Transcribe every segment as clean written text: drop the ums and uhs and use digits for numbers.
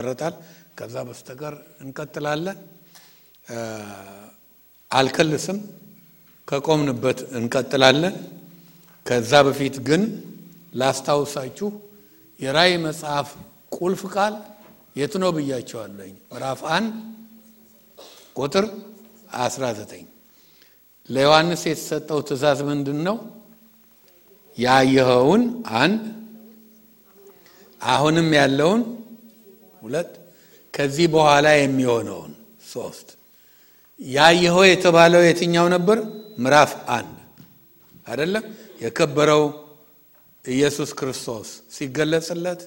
ረታል ከዛ በስተቀር እንቀጥላለን። አልከልስም ከቆምንበት እንቀጥላለን። ከዛ በፊት ግን ላስታውሳችሁ የራእይ መጽሐፍ ቁልፍ ቃል የት ነው ብያቸዋለሁ። ምዕራፍ 1 ቁጥር 19 ለዮሐንስ የተሰጠው ትእዛዝ ምንድነው? ያየኸውን 1 አሁንም ያለውን 2 ከዚህ በኋላ የሚሆነውን 3 ያየኸው የተባለው የትኛው ነበር? ምዕራፍ 1 አይደለም? የከበረው ኢየሱስ ክርስቶስ ሲገለጽለት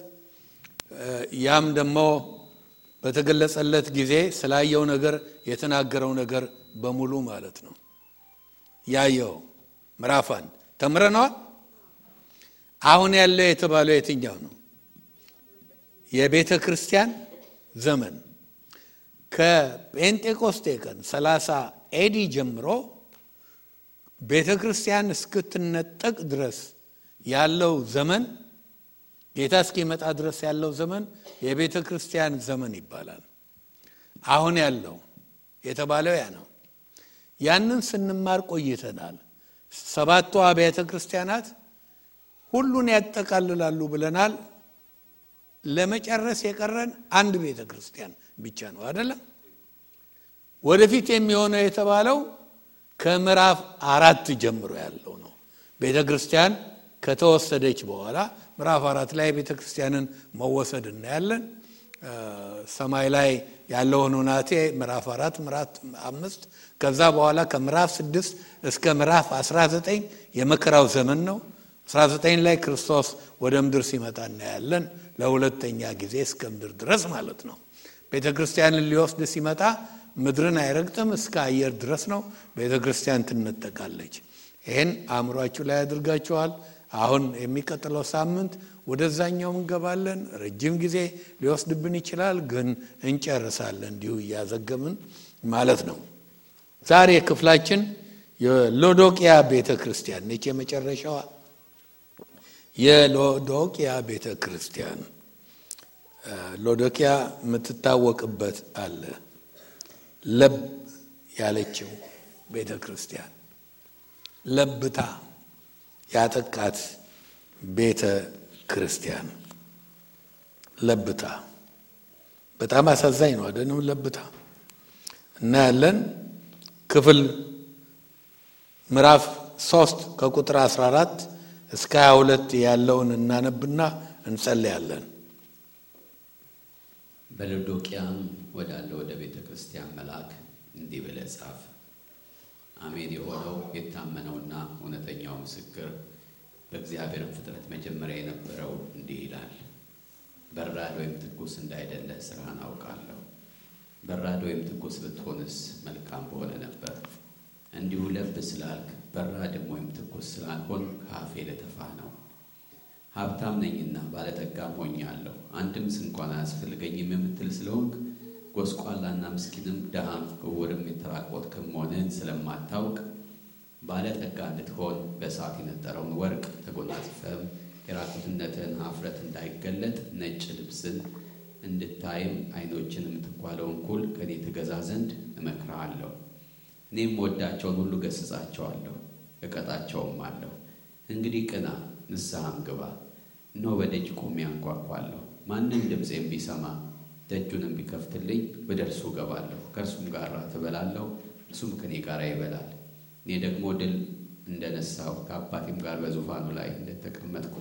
ያም ደግሞ በተገለጸለት ጊዜ ስላየው ነገር የተናገረው ነገር በሙሉ ማለት ነው። ያየው ምዕራፍ 1 ተምረናል። አሁን ያለው የተባለው የትኛው ነው? የቤተ ክርስቲያን ዘመን ከጴንጤቆስጤ ቀን 30 ኤዲ ጀምሮ ቤተ ክርስቲያን እስክትነጠቅ ድረስ ያለው ዘመን ጌታ እስኪመጣ ድረስ ያለው ዘመን የቤተ ክርስቲያን ዘመን ይባላል። አሁን ያለው የተባለው ያ ነው። ያንን ስንማር ቆይተናል። 7ቱ አብያተ ክርስቲያናት ሁሉን ያጠቃልላሉ ብለናል። ለመጨረስ የቀረን አንድ ቤተ ክርስቲያን ብቻ ነው አይደለም? ወደፊት የሚሆነው የተባለው ከምዕራፍ 4 ጀምሮ ያለው ነው። ቤተ ክርስቲያን ከተወሰደች በኋላ ምዕራፍ 4 ላይ ቤተ ክርስቲያንን መወሰድ እናያለን። ሰማይ ላይ ያለው ሁናቴ ምዕራፍ 4 ምዕራፍ 5 ከዛ በኋላ ከምዕራፍ 6 እስከ ምዕራፍ 19 የመከራው ዘመን ነው። 19 ላይ ክርስቶስ ወደ ምድር ሲመጣ እናያለን። ለሁለተኛ ጊዜ እስከ ምድር ድረስ ማለት ነው። ቤተ ክርስቲያንን ሊወስድ ሲመጣ ምድርን አይረግጥም፣ እስከ አየር ድረስ ነው። ቤተ ክርስቲያን ትነጠቃለች። ይሄን አእምሯችሁ ላይ አድርጋችኋል። አሁን የሚቀጥለው ሳምንት ወደዛኛው እንገባለን። ረጅም ጊዜ ሊወስድብን ይችላል፣ ግን እንጨርሳለን እንዲሁ እያዘገምን ማለት ነው። ዛሬ ክፍላችን የሎዶቅያ ቤተ ክርስቲያን ነች። የመጨረሻዋ የሎዶቅያ ቤተ ክርስቲያን ሎዶቅያ የምትታወቅበት አለ። ለብ ያለችው ቤተ ክርስቲያን ለብታ ያጠቃት ቤተ ክርስቲያን ለብታ በጣም አሳዛኝ ነው አይደለም? ለብታ እና ያለን ክፍል ምዕራፍ 3 ከቁጥር 14 እስከ 22 ያለውን እናነብና እንጸልያለን። በሎዶቅያም ወዳለው ወደ ቤተ ክርስቲያን መልአክ እንዲህ ብለህ ጻፍ። አሜን የሆነው የታመነውና እውነተኛው ምስክር በእግዚአብሔር ፍጥረት መጀመሪያ የነበረው እንዲህ ይላል። በራድ ወይም ትኩስ እንዳይደለ ስራህን አውቃለሁ። በራድ ወይም ትኩስ ብትሆንስ መልካም በሆነ ነበር። እንዲሁ ለብ ስላልክ በራድም ወይም ትኩስ ስላልሆን ከአፌ ልተፋህ ነው። ሀብታም ነኝና ባለጠጋም ሆኛለሁ፣ አንድም እንኳን አያስፈልገኝም የምትል ስለሆንክ ጎስቋላና ምስኪንም ደሃም ዕውርም የተራቆትክም መሆንህን ስለማታውቅ ባለጠጋ እንድትሆን በእሳት የነጠረውን ወርቅ ተጎናጽፈህም የራቁትነትህን ኀፍረት እንዳይገለጥ ነጭ ልብስን እንድታይም ዓይኖችን የምትኳለውን ኩል ከኔ ትገዛ ዘንድ እመክርሃለሁ። እኔም ወዳቸውን ሁሉ ገሥጻቸዋለሁ እቀጣቸውም አለሁ። እንግዲህ ቅና ንስሐም ግባ። እነሆ በደጅ ቆሜ አንኳኳለሁ። ማንም ድምፄን ቢሰማ ደጁንም ቢከፍትልኝ ወደ እርሱ እገባለሁ፣ ከእርሱም ጋር እበላለሁ፣ እርሱም ከኔ ጋር ይበላል። እኔ ደግሞ ድል እንደነሳው ከአባቴም ጋር በዙፋኑ ላይ እንደተቀመጥኩ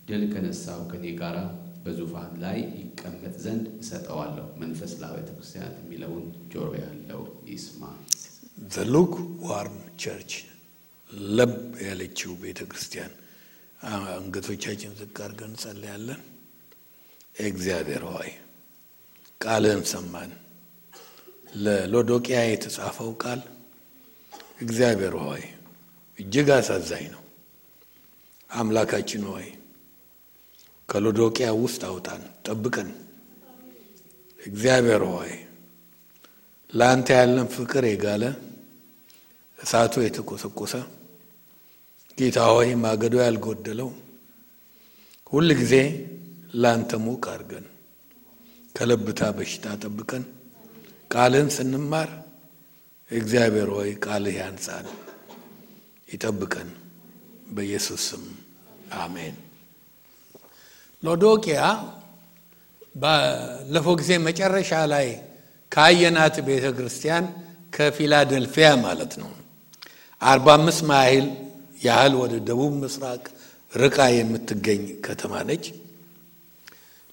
ድል ከነሳው ከኔ ጋር በዙፋን ላይ ይቀመጥ ዘንድ እሰጠዋለሁ። መንፈስ ለአብያተ ክርስቲያናት የሚለውን ጆሮ ያለው ይስማ። The lukewarm church ለብ ያለችው ቤተ ክርስቲያን አንገቶቻችን ዝቅ አድርገን እንጸልያለን። እግዚአብሔር ሆይ ቃልህን ሰማን። ለሎዶቅያ የተጻፈው ቃል እግዚአብሔር ሆይ እጅግ አሳዛኝ ነው። አምላካችን ሆይ ከሎዶቅያ ውስጥ አውጣን፣ ጠብቀን። እግዚአብሔር ሆይ ላንተ ያለን ፍቅር የጋለ እሳቱ የተቆሰቆሰ ጌታ ሆይ ማገዶ ያልጎደለው ሁሉ ጊዜ ላንተ ሙቅ አድርገን ከለብታ በሽታ ጠብቀን። ቃልን ስንማር እግዚአብሔር ሆይ ቃልህ ያንጻን ይጠብቀን በኢየሱስ ስም አሜን። ሎዶቅያ ባለፈው ጊዜ መጨረሻ ላይ ካየናት ቤተክርስቲያን ከፊላደልፊያ ማለት ነው 45 ማይል ያህል ወደ ደቡብ ምስራቅ ርቃ የምትገኝ ከተማ ነች።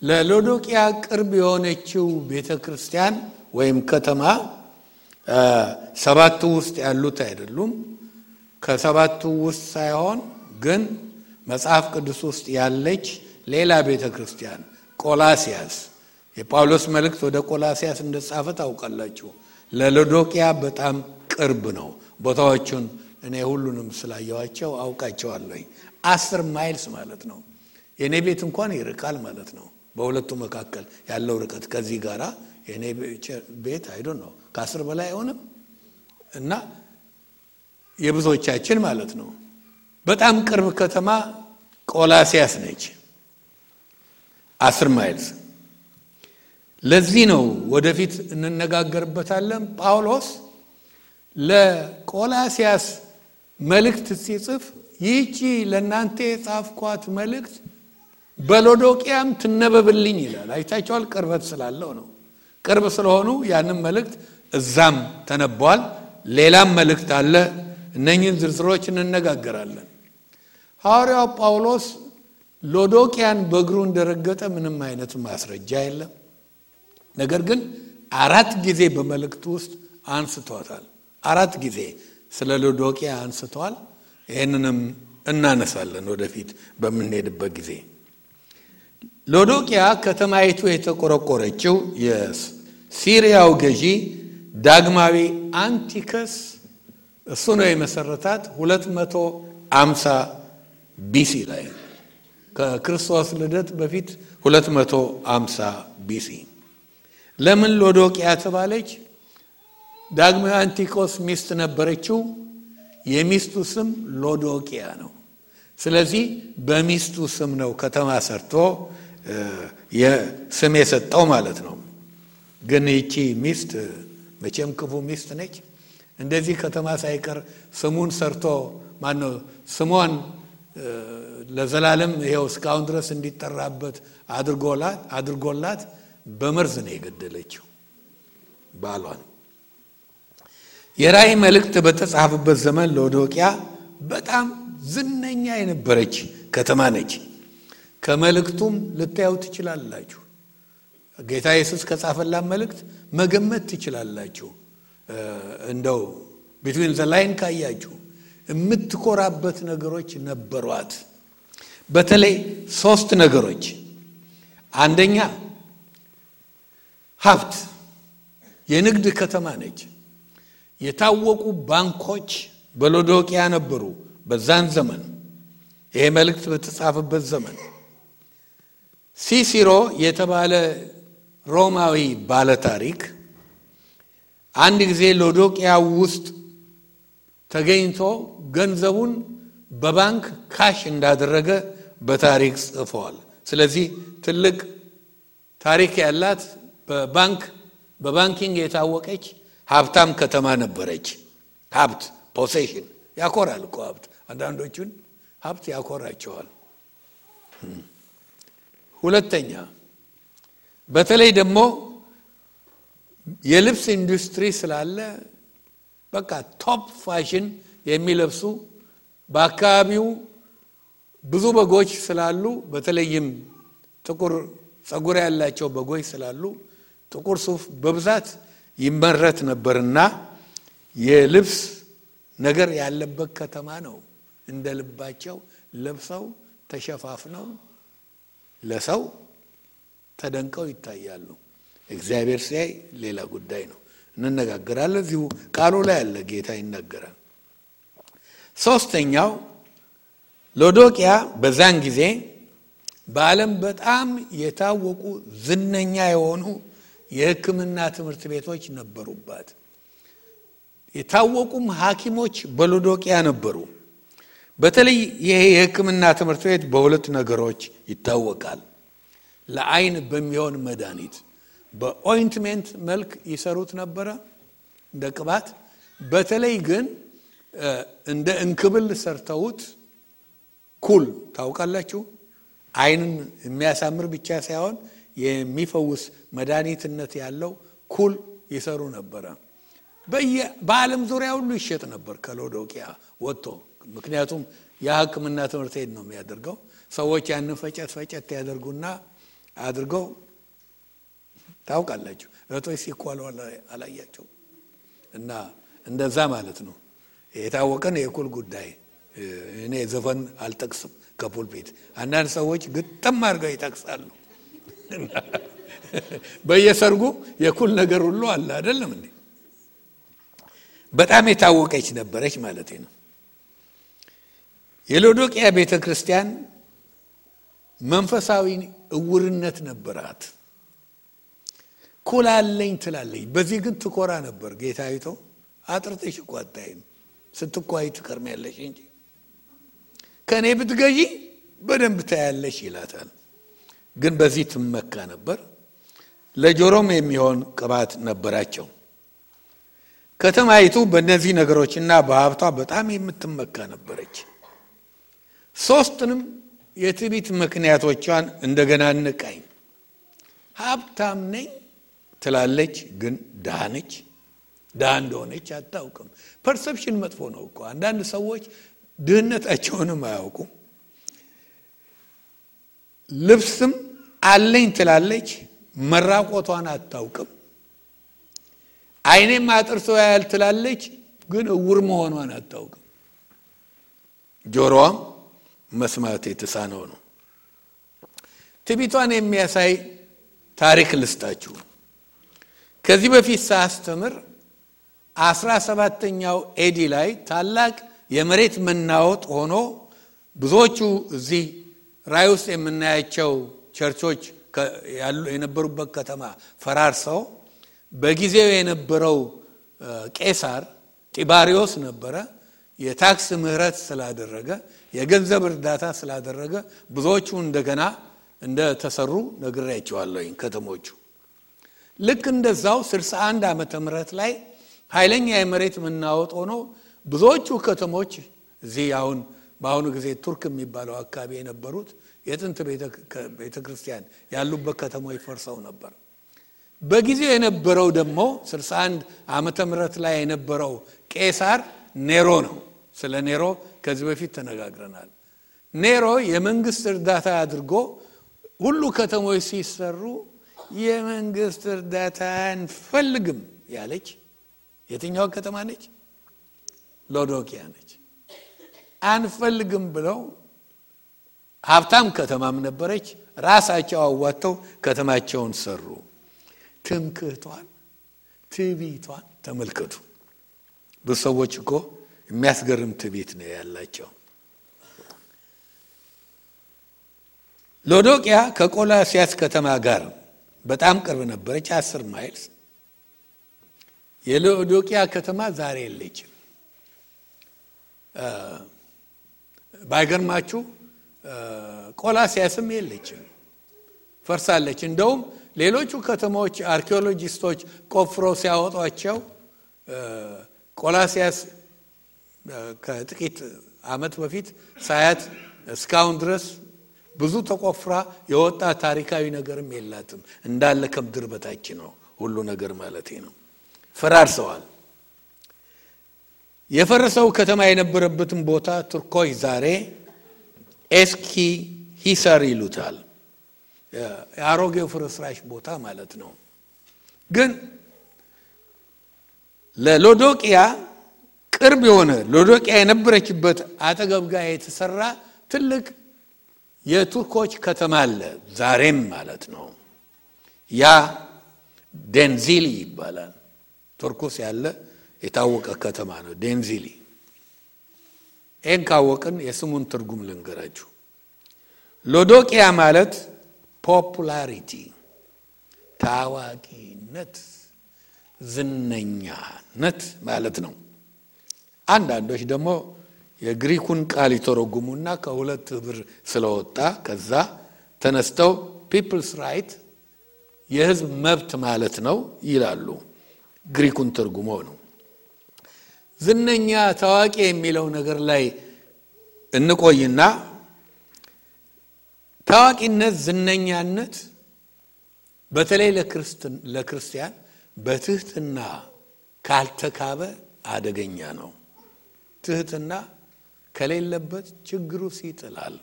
ለሎዶቅያ ቅርብ የሆነችው ቤተክርስቲያን ወይም ከተማ ሰባቱ ውስጥ ያሉት አይደሉም። ከሰባቱ ውስጥ ሳይሆን ግን መጽሐፍ ቅዱስ ውስጥ ያለች ሌላ ቤተክርስቲያን ቆላሲያስ፣ የጳውሎስ መልእክት ወደ ቆላሲያስ እንደጻፈ ታውቃላችሁ። ለሎዶቅያ በጣም ቅርብ ነው። ቦታዎቹን እኔ ሁሉንም ስላየዋቸው አውቃቸዋለሁ። 10 ማይልስ ማለት ነው። የኔ ቤት እንኳን ይርቃል ማለት ነው። በሁለቱ መካከል ያለው ርቀት ከዚህ ጋራ የኔ ቤት አይዶን ነው ከ10 በላይ አይሆንም እና የብዙዎቻችን ማለት ነው። በጣም ቅርብ ከተማ ቆላሲያስ ነች 10 ማይልስ። ለዚህ ነው ወደፊት እንነጋገርበታለን። ጳውሎስ ለቆላሲያስ መልእክት ሲጽፍ ይህቺ ለእናንተ የጻፍኳት መልእክት በሎዶቅያም ትነበብልኝ ይላል። አይታችኋል? ቅርበት ስላለው ነው። ቅርብ ስለሆኑ ያንን መልእክት እዛም ተነቧል። ሌላም መልእክት አለ። እነኚህን ዝርዝሮች እንነጋገራለን። ሐዋርያው ጳውሎስ ሎዶቅያን በእግሩ እንደረገጠ ምንም አይነት ማስረጃ የለም። ነገር ግን 4 ጊዜ በመልእክቱ ውስጥ አንስቷታል። 4 ጊዜ ስለ ሎዶቅያ አንስቷል። ይህንንም እናነሳለን ወደፊት በምንሄድበት ጊዜ። ሎዶቅያ ከተማይቱ የተቆረቆረችው የሲሪያው ገዢ ዳግማዊ አንቲከስ እሱ ነው የመሰረታት 250 ቢሲ ላይ ከክርስቶስ ልደት በፊት 250 ቢሲ። ለምን ሎዶቅያ ተባለች? ዳግማዊ አንቲኮስ ሚስት ነበረችው። የሚስቱ ስም ሎዶቅያ ነው። ስለዚህ በሚስቱ ስም ነው ከተማ ሰርቶ የስም የሰጠው ማለት ነው። ግን ይቺ ሚስት መቼም ክፉ ሚስት ነች። እንደዚህ ከተማ ሳይቀር ስሙን ሰርቶ ማነው ስሟን ለዘላለም ይሄው እስካሁን ድረስ እንዲጠራበት አድርጎላት በመርዝ ነው የገደለችው ባሏን። የራእይ መልእክት በተጻፈበት ዘመን ሎዶቅያ በጣም ዝነኛ የነበረች ከተማ ነች። ከመልእክቱም ልታዩ ትችላላችሁ። ጌታ ኢየሱስ ከጻፈላት መልእክት መገመት ትችላላችሁ። እንደው ቢትዊን ዘ ላይን ካያችሁ የምትኮራበት ነገሮች ነበሯት። በተለይ 3 ነገሮች። አንደኛ ሀብት፣ የንግድ ከተማ ነች። የታወቁ ባንኮች በሎዶቅያ ነበሩ በዛን ዘመን፣ ይሄ መልእክት በተጻፈበት ዘመን። ሲሲሮ የተባለ ሮማዊ ባለ ታሪክ አንድ ጊዜ ሎዶቅያ ውስጥ ተገኝቶ ገንዘቡን በባንክ ካሽ እንዳደረገ በታሪክ ጽፏል። ስለዚህ ትልቅ ታሪክ ያላት በባንኪንግ የታወቀች ሀብታም ከተማ ነበረች። ሀብት ፖሴሽን ያኮራል እኮ ሀብት። አንዳንዶቹን ሀብት ያኮራቸዋል። ሁለተኛ በተለይ ደግሞ የልብስ ኢንዱስትሪ ስላለ በቃ ቶፕ ፋሽን የሚለብሱ በአካባቢው ብዙ በጎች ስላሉ፣ በተለይም ጥቁር ጸጉር ያላቸው በጎች ስላሉ ጥቁር ሱፍ በብዛት ይመረት ነበርና የልብስ ነገር ያለበት ከተማ ነው። እንደ ልባቸው ለብሰው ተሸፋፍነው ለሰው ተደንቀው ይታያሉ። እግዚአብሔር ሲያይ ሌላ ጉዳይ ነው። እንነጋገራለን። እዚሁ ቃሉ ላይ ያለ ጌታ ይናገራል። ሶስተኛው ሎዶቅያ በዛን ጊዜ በዓለም በጣም የታወቁ ዝነኛ የሆኑ የሕክምና ትምህርት ቤቶች ነበሩባት። የታወቁም ሐኪሞች በሎዶቅያ ነበሩ። በተለይ ይሄ የሕክምና ትምህርት ቤት በሁለት ነገሮች ይታወቃል። ለዓይን በሚሆን መድኃኒት በኦይንትመንት መልክ ይሰሩት ነበር እንደ ቅባት በተለይ ግን እንደ እንክብል ሰርተውት ኩል ታውቃላችሁ አይንን የሚያሳምር ብቻ ሳይሆን የሚፈውስ መድኃኒትነት ያለው ኩል ይሰሩ ነበር በዓለም ዙሪያ ሁሉ ይሸጥ ነበር ከሎዶቅያ ወጥቶ ምክንያቱም የሕክምና ትምህርት ነው የሚያደርገው ሰዎች ያንን ፈጨት ያደርጉና አድርገው ታውቃላችሁ እቶይ ሲኳሉ አላያቸው እና እንደዛ ማለት ነው የታወቀን የኩል ጉዳይ እኔ ዘፈን አልጠቅስም ከፑልፒት አንዳንድ ሰዎች ግጥም አድርገው ይጠቅሳሉ በየሰርጉ የኩል ነገር ሁሉ አለ አይደለም እንዴ በጣም የታወቀች ነበረች ማለት ነው የሎዶቅያ ቤተክርስቲያን መንፈሳዊ እውርነት ነበራት ኩል አለኝ ትላለች በዚህ ግን ትኮራ ነበር ጌታይቶ አጥርተሽ ቋጣይም ስትኳይ ትከርሚያለሽ እንጂ ከኔ ብትገዢ በደንብ ታያለሽ ይላታል ግን በዚህ ትመካ ነበር ለጆሮም የሚሆን ቅባት ነበራቸው ከተማይቱ በእነዚህ ነገሮችና በሀብቷ በጣም የምትመካ ነበረች ሶስቱንም የትዕቢት ምክንያቶቿን እንደገና እንቃኝ ሀብታም ነኝ ትላለች ግን ድሃ ነች ድሃ እንደሆነች አታውቅም ፐርሰፕሽን መጥፎ ነው እኮ አንዳንድ ሰዎች ድህነታቸውንም አያውቁም ልብስም አለኝ ትላለች መራቆቷን አታውቅም አይኔም አጥርቶ ያያል ትላለች ግን እውር መሆኗን አታውቅም ጆሮዋም መስማት የተሳነው ነው ትዕቢቷን የሚያሳይ ታሪክ ልስጣችሁ ከዚህ በፊት ሳስተምር 17ኛው ኤዲ ላይ ታላቅ የመሬት መናወጥ ሆኖ ብዙዎቹ እዚህ ራይ ውስጥ የምናያቸው ቸርቾች የነበሩበት ከተማ ፈራርሰው በጊዜው የነበረው ቄሳር ጢባሪዮስ ነበረ የታክስ ምህረት ስላደረገ የገንዘብ እርዳታ ስላደረገ ብዙዎቹ እንደገና እንደተሰሩ ነግሬያቸዋለሁ ከተሞቹ ልክ እንደዛው 61 ዓመተ ምህረት ላይ ኃይለኛ የመሬት መናወጥ ሆኖ ብዙዎቹ ከተሞች እዚህ አሁን በአሁኑ ጊዜ ቱርክ የሚባለው አካባቢ የነበሩት የጥንት ቤተክርስቲያን ያሉበት ከተሞች ፈርሰው ነበር በጊዜው የነበረው ደግሞ 61 ዓመተ ምህረት ላይ የነበረው ቄሳር ኔሮ ነው ስለ ኔሮ ከዚህ በፊት ተነጋግረናል ኔሮ የመንግስት እርዳታ አድርጎ ሁሉ ከተሞች ሲሰሩ የመንግስት እርዳታ አንፈልግም ያለች የትኛው ከተማ ነች ሎዶቅያ ነች አንፈልግም ብለው ሀብታም ከተማም ነበረች ራሳቸው አዋተው ከተማቸውን ሰሩ ትምክህቷን ትዕቢቷን ተመልከቱ ብዙ ሰዎች እኮ የሚያስገርም ትዕቢት ነው ያላቸው ሎዶቅያ ከቆላሲያስ ከተማ ጋር በጣም ቅርብ ነበረች 10 ማይልስ የሎዶቅያ ከተማ ዛሬ የለችም ባይገርማችሁ ቆላሲያስም የለችም ፈርሳለች እንደውም ሌሎቹ ከተሞች አርኪኦሎጂስቶች ቆፍረው ሲያወጧቸው ቆላሲያስ ከጥቂት አመት በፊት ሳያት እስካሁን ድረስ ብዙ ተቆፍራ የወጣ ታሪካዊ ነገርም የላትም እንዳለ ከምድር በታች ነው ሁሉ ነገር ማለት ነው ፈራርሰዋል የፈረሰው ከተማ የነበረበትን ቦታ ቱርኮች ዛሬ ኤስኪ ሂሳር ይሉታል የአሮጌው ፍርስራሽ ቦታ ማለት ነው ግን ለሎዶቅያ ቅርብ የሆነ ሎዶቅያ የነበረችበት አጠገብ ጋር የተሰራ ትልቅ የቱርኮች ከተማ አለ ዛሬም ማለት ነው ያ ደንዚሊ ይባላል ቱርኮስ ያለ የታወቀ ከተማ ነው ደንዚሊ ካወቅን የስሙን ትርጉም ልንገራችሁ ሎዶቅያ ማለት ፖፑላሪቲ ታዋቂነት ዝነኛነት ማለት ነው አንዳንዶች ደግሞ የግሪኩን ቃል ይተረጉሙና ከሁለት ብር ስለወጣ ከዛ ተነስተው ፒፕልስ ራይት የህዝብ መብት ማለት ነው ይላሉ። ግሪኩን ትርጉሞ ነው። ዝነኛ ታዋቂ የሚለው ነገር ላይ እንቆይና ታዋቂነት ዝነኛነት በተለይ ለክርስቲያን በትህትና ካልተካበ አደገኛ ነው። ትህትና ከሌለበት ችግሩስ ይጥላል።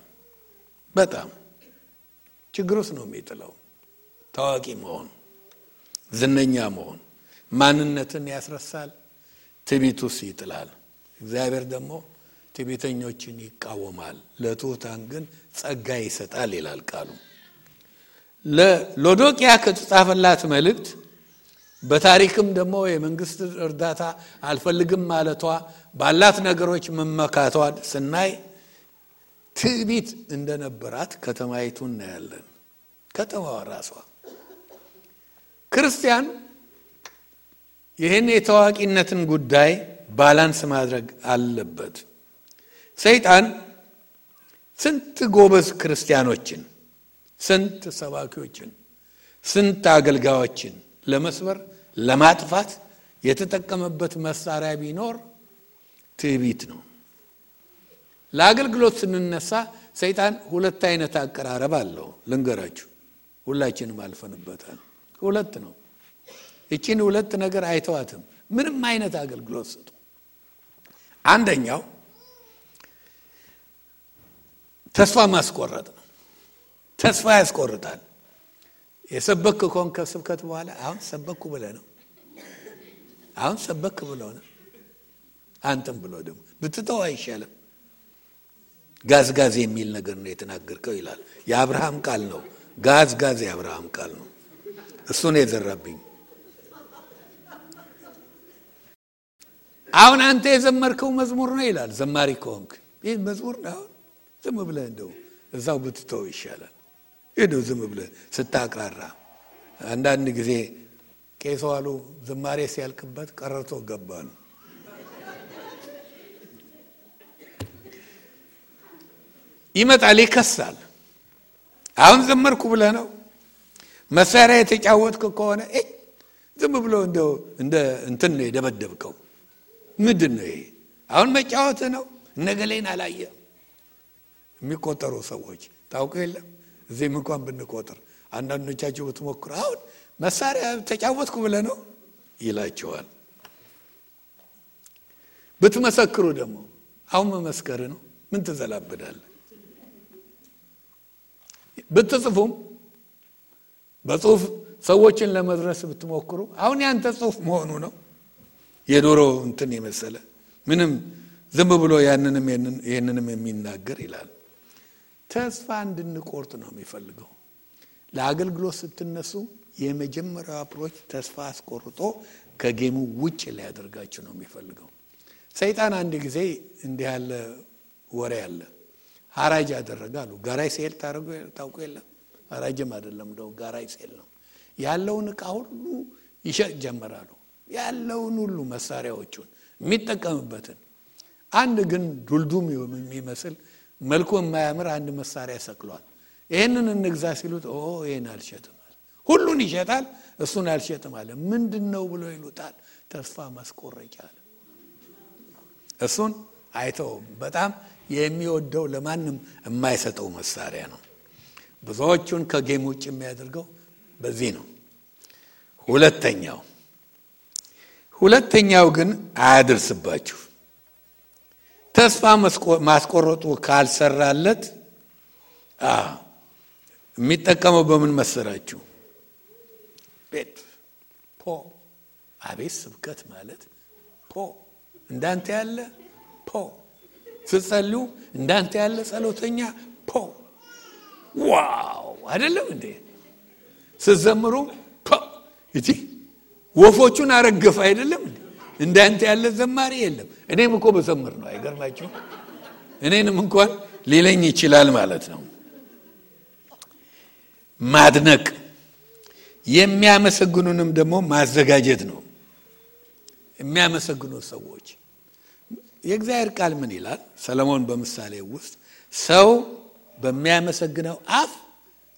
በጣም ችግሩስ ነው የሚጥለው። ታዋቂ መሆን ዝነኛ መሆን ማንነትን ያስረሳል፣ ትዕቢቱስ ይጥላል። እግዚአብሔር ደግሞ ትዕቢተኞችን ይቃወማል፣ ለትሑታን ግን ጸጋ ይሰጣል ይላል ቃሉ። ለሎዶቅያ ከተጻፈላት መልእክት በታሪክም ደግሞ የመንግስት እርዳታ አልፈልግም ማለቷ ባላት ነገሮች መመካቷ ስናይ ትዕቢት እንደነበራት ከተማይቱ እናያለን። ከተማዋ ራሷ ክርስቲያን ይህን የታዋቂነትን ጉዳይ ባላንስ ማድረግ አለበት። ሰይጣን ስንት ጎበዝ ክርስቲያኖችን፣ ስንት ሰባኪዎችን፣ ስንት አገልጋዮችን ለመስበር ለማጥፋት የተጠቀመበት መሳሪያ ቢኖር ትዕቢት ነው። ለአገልግሎት ስንነሳ ሰይጣን ሁለት አይነት አቀራረብ አለው። ልንገራችሁ፣ ሁላችንም አልፈንበታል። ሁለት ነው። እቺን ሁለት ነገር አይተዋትም ምንም አይነት አገልግሎት ስጡ። አንደኛው ተስፋ ማስቆረጥ ነው። ተስፋ ያስቆርጣል። የሰበክ ኮንከ ስብከት በኋላ አሁን ሰበኩ ብለህ ነው፣ አሁን ሰበክ ብለው ነው አንተም ብሎ ደግሞ ብትተው አይሻልም? ጋዝ የሚል ነገር ነው የተናገርከው ይላል። የአብርሃም ቃል ነው። ጋዝ የአብርሃም ቃል ነው። እሱ ነው የዘራብኝ። አሁን አንተ የዘመርከው መዝሙር ነው ይላል። ዘማሪ ከሆንክ ይህ መዝሙር ነው፣ ዝም ብለህ እንደው እዛው ብትተው ይሻላል። ይሄው ዝም ብለህ ስታቅራራ አንዳንድ ጊዜ ቄሱ አሉ ዝማሬ ሲያልቅበት ቀረርቶ ገባሉ። ይመጣል ይከሳል። አሁን ዘመርኩ ብለህ ነው መሳሪያ የተጫወትክ ከሆነ ዝም ብሎ እንደው እንደ እንትን ነው የደበደብከው። ምንድነው ይሄ? አሁን መጫወት ነው። ነገሌን አላየ የሚቆጠሩ ሰዎች ታውቁ የለም። እዚህም እንኳን ብንቆጥር አንዳንዶቻችሁ ብትሞክሩ አሁን መሳሪያ ተጫወትኩ ብለህ ነው ይላቸዋል። ብትመሰክሩ ደግሞ አሁን መመስከር ነው። ምን ትዘላብዳለህ? ብትጽፉም በጽሁፍ ሰዎችን ለመድረስ ብትሞክሩ አሁን ያንተ ጽሁፍ መሆኑ ነው። የዶሮ እንትን የመሰለ ምንም ዝም ብሎ ያንንም የሚናገር ይላል። ተስፋ እንድንቆርጥ ነው የሚፈልገው። ለአገልግሎት ስትነሱ የመጀመሪያው አፕሮች ተስፋ አስቆርጦ ከጌሙ ውጭ ሊያደርጋችሁ ነው የሚፈልገው። ሰይጣን አንድ ጊዜ እንዲህ ያለ ወሬ አለ። ሐራጅ ያደረጋሉ። ጋራይ ሴል ታውቁ የለም? ሐራጅም አይደለም እንደው ጋራይ ሴል ነው። ያለውን ዕቃ ሁሉ ይሸጥ ጀመራሉ። ያለውን ሁሉ መሳሪያዎቹን የሚጠቀምበትን አንድ ግን ዱልዱም የሚመስል መልኩ የማያምር አንድ መሳሪያ ሰቅሏል። ይሄንን እንግዛ ሲሉት ይሄን አልሸጥም አለ። ሁሉን ይሸጣል፣ እሱን አልሸጥም አለ። ምንድነው ብሎ ይሉታል። ተስፋ ማስቆረጫ አለ። እሱን አይተው በጣም የሚወደው ለማንም የማይሰጠው መሳሪያ ነው። ብዙዎቹን ከጌም ውጭ የሚያደርገው በዚህ ነው። ሁለተኛው ግን አያድርስባችሁ። ተስፋ ማስቆረጡ ካልሰራለት የሚጠቀመው በምን መሰራችሁ? ቤት አቤት ስብከት ማለት እንዳንተ ያለ ስትጸልዩ እንዳንተ ያለ ጸሎተኛ ዋው አይደለም እንዴ? ስትዘምሩ እቲ ወፎቹን አረገፈ አይደለም እንዴ? እንዳንተ ያለ ዘማሪ የለም። እኔም እኮ በዘምር ነው አይገርማችሁ? እኔንም እንኳን ሊለኝ ይችላል ማለት ነው። ማድነቅ የሚያመሰግኑንም ደግሞ ማዘጋጀት ነው። የሚያመሰግኑ ሰዎች የእግዚአብሔር ቃል ምን ይላል? ሰለሞን በምሳሌ ውስጥ ሰው በሚያመሰግነው አፍ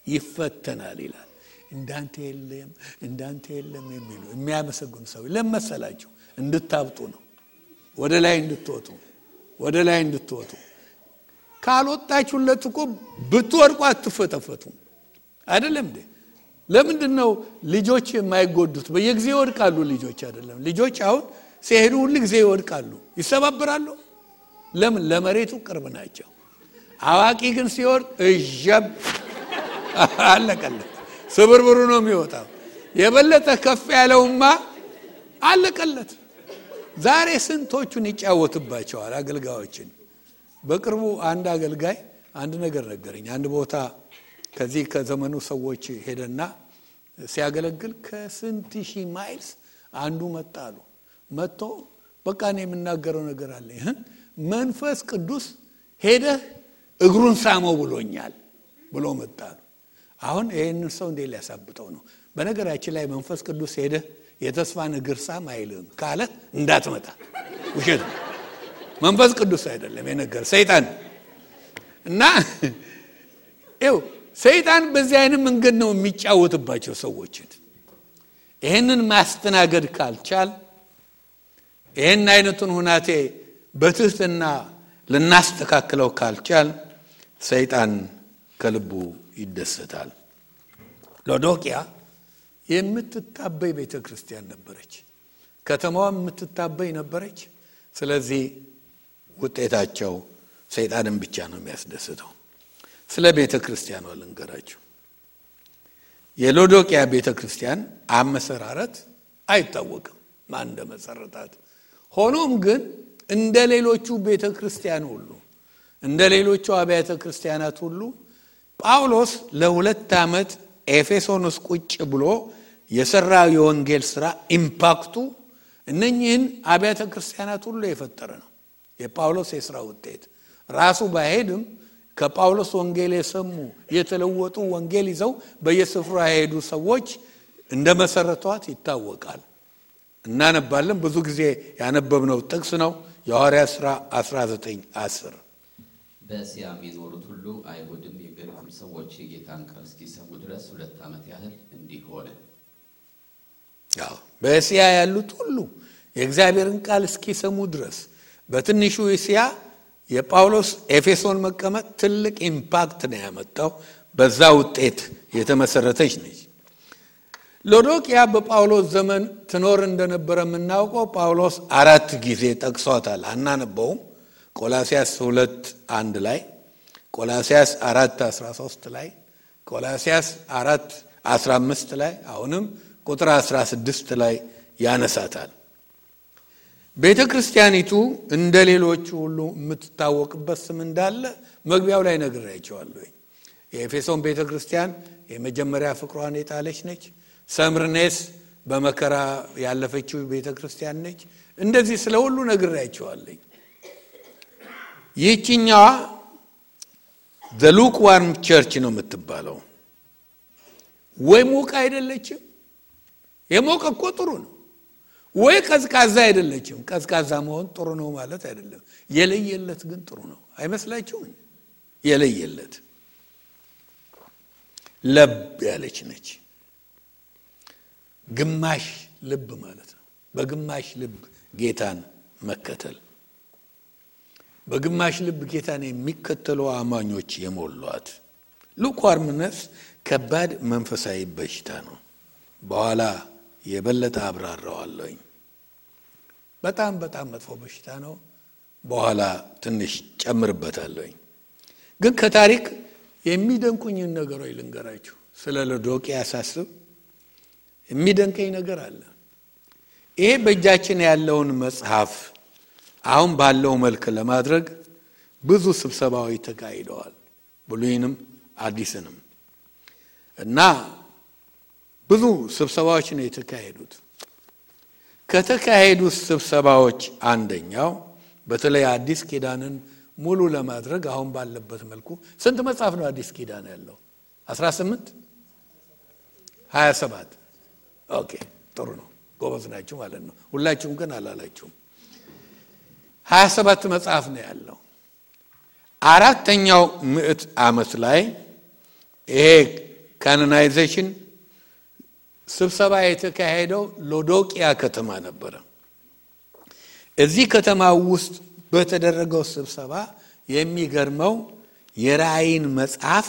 ይፈተናል ይላል። እንዳንተ የለም የሚሉ የሚያመሰግኑ ሰው ለመሰላችሁ እንድታብጡ ነው። ወደ ላይ እንድትወጡ ካልወጣችሁለት እኮ ብትወድቁ አትፈተፈቱ አይደለም እንዴ? ለምንድነው ልጆች የማይጎዱት? በየጊዜው ይወድቃሉ ልጆች አይደለም? ልጆች አሁን ሲሄዱ ሁሉ ጊዜ ይወድቃሉ፣ ይሰባበራሉ። ለምን? ለመሬቱ ቅርብ ናቸው። አዋቂ ግን ሲወድቅ እጀብ አለቀለት፣ ስብርብሩ ነው የሚወጣው። የበለጠ ከፍ ያለውማ አለቀለት። ዛሬ ስንቶቹን ይጫወትባቸዋል አገልጋዮችን። በቅርቡ አንድ አገልጋይ አንድ ነገር ነገረኝ። አንድ ቦታ ከዚህ ከዘመኑ ሰዎች ሄደና ሲያገለግል ከስንት ሺህ ማይልስ አንዱ መጣሉ። መጥቶ በቃ እኔ የምናገረው ነገር አለ፣ መንፈስ ቅዱስ ሄደህ እግሩን ሳመው ብሎኛል ብሎ መጣሉ። አሁን ይሄንን ሰው እንዴት ሊያሳብጠው ነው? በነገራችን ላይ መንፈስ ቅዱስ ሄደህ የተስፋን እግር ሳም አይልም ካለ እንዳትመጣ፣ ውሸት ነው። መንፈስ ቅዱስ አይደለም የነገር ሰይጣን። እና ሰይጣን በዚህ አይነት መንገድ ነው የሚጫወትባቸው ሰዎችን። ይሄንን ማስተናገድ ካልቻል፣ ይሄን አይነቱን ሁናቴ በትህትና ልናስተካክለው ካልቻል ሰይጣን ከልቡ ይደሰታል። ሎዶቅያ የምትታበይ ቤተክርስቲያን ነበረች። ከተማዋ የምትታበይ ነበረች። ስለዚህ ውጤታቸው ሰይጣንን ብቻ ነው የሚያስደስተው። ስለ ቤተክርስቲያኗ ልንገራችሁ። የሎዶቅያ ቤተክርስቲያን አመሰራረት አይታወቅም ማን እንደመሰረታት። ሆኖም ግን እንደ ሌሎቹ ቤተክርስቲያን ሁሉ እንደ ሌሎቹ አብያተ ክርስቲያናት ሁሉ ጳውሎስ ለ2 ዓመት ኤፌሶን ውስጥ ቁጭ ብሎ የሰራው የወንጌል ሥራ ኢምፓክቱ እነኚህን አብያተ ክርስቲያናት ሁሉ የፈጠረ ነው። የጳውሎስ የሥራ ውጤት ራሱ ባይሄድም ከጳውሎስ ወንጌል የሰሙ የተለወጡ ወንጌል ይዘው በየስፍራው የሄዱ ሰዎች እንደመሰረቷት ይታወቃል። እናነባለን። ብዙ ጊዜ ያነበብነው ጥቅስ ነው የሐዋርያት ሥራ 19:10። በእስያ የሚኖሩት ሁሉ አይሁድም የግሪክም ሰዎች የጌታን ቃል እስኪሰሙ ድረስ 2 ዓመት ያህል እንዲህ ሆነ። በእስያ ያሉት ሁሉ የእግዚአብሔርን ቃል እስኪሰሙ ድረስ በትንሹ እስያ የጳውሎስ ኤፌሶን መቀመጥ ትልቅ ኢምፓክት ነው ያመጣው። በዛ ውጤት የተመሰረተች ነች። ሎዶቅያ በጳውሎስ ዘመን ትኖር እንደነበረ የምናውቀው ጳውሎስ 4 ጊዜ ጠቅሷታል። አናነበውም። ቆላስያስ 2:1 ላይ፣ ቆላስያስ 4:13 ላይ፣ ቆላስያስ 4:15 ላይ፣ አሁንም ቁጥር 16 ላይ ያነሳታል። ቤተክርስቲያኒቱ እንደሌሎቹ ሁሉ የምትታወቅበት ስም እንዳለ መግቢያው ላይ ነግሬያቸዋለሁ። የኤፌሶን ቤተክርስቲያን የመጀመሪያ ፍቅሯን የጣለች ነች። ሰምርኔስ በመከራ ያለፈችው ቤተክርስቲያን ነች። እንደዚህ ስለ ሁሉ ነግሬያቸዋለሁ። ይህችኛዋ the lukewarm church ነው የምትባለው። ወይ ሞቃ አይደለችም። የሞቀ እኮ ጥሩ ነው። ወይ ቀዝቃዛ አይደለችም። ቀዝቃዛ መሆን ጥሩ ነው ማለት አይደለም። የለየለት ግን ጥሩ ነው አይመስላችሁም? የለየለት ለብ ያለች ነች። ግማሽ ልብ ማለት ነው። በግማሽ ልብ ጌታን መከተል፣ በግማሽ ልብ ጌታን የሚከተሉ አማኞች የሞሏት። ሉክዋርምነስ ከባድ መንፈሳዊ በሽታ ነው። በኋላ የበለጠ አብራራዋለሁ። በጣም መጥፎ በሽታ ነው። በኋላ ትንሽ ጨምርበታለሁ። ግን ከታሪክ የሚደንቁኝን ነገሮች ልንገራችሁ። ስለ ሎዶቅያ ሳስብ የሚደንቀኝ ነገር አለ። ይሄ በእጃችን ያለውን መጽሐፍ አሁን ባለው መልክ ለማድረግ ብዙ ስብሰባዎች ተካሂደዋል፣ ብሉይንም አዲስንም። እና ብዙ ስብሰባዎች ነው የተካሄዱት። ከተካሄዱት ስብሰባዎች አንደኛው በተለይ አዲስ ኪዳንን ሙሉ ለማድረግ አሁን ባለበት መልኩ ስንት መጽሐፍ ነው አዲስ ኪዳን ያለው? 18 27 ኦኬ፣ ጥሩ ነው፣ ጎበዝ ናችሁ ማለት ነው። ሁላችሁም ግን አላላችሁም። 27 መጽሐፍ ነው ያለው። 4ኛው ምዕት ዓመት ላይ ይሄ ካኖናይዜሽን ስብሰባ የተካሄደው ሎዶቅያ ከተማ ነበር። እዚህ ከተማ ውስጥ በተደረገው ስብሰባ የሚገርመው የራእይን መጽሐፍ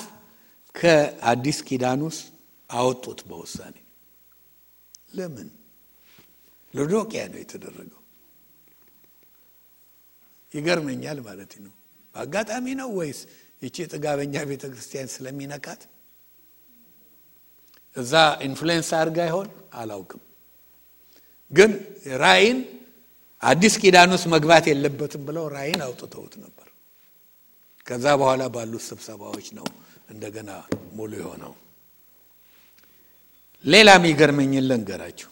ከአዲስ ኪዳን ውስጥ አወጡት በውሳኔ። ለምን? ሎዶቅያ ነው የተደረገው። ይገርመኛል ማለት ነው። በአጋጣሚ ነው ወይስ እቺ ጥጋበኛ ቤተክርስቲያን ስለሚነካት እዛ ኢንፍሉዌንስ አድርጋ ይሆን አላውቅም። ግን ራእይን አዲስ ኪዳን ውስጥ መግባት የለበትም ብለው ራእይን አውጥተውት ነበር። ከዛ በኋላ ባሉት ስብሰባዎች ነው እንደገና ሙሉ የሆነው። ሌላም ይገርመኝን ልንገራችሁ።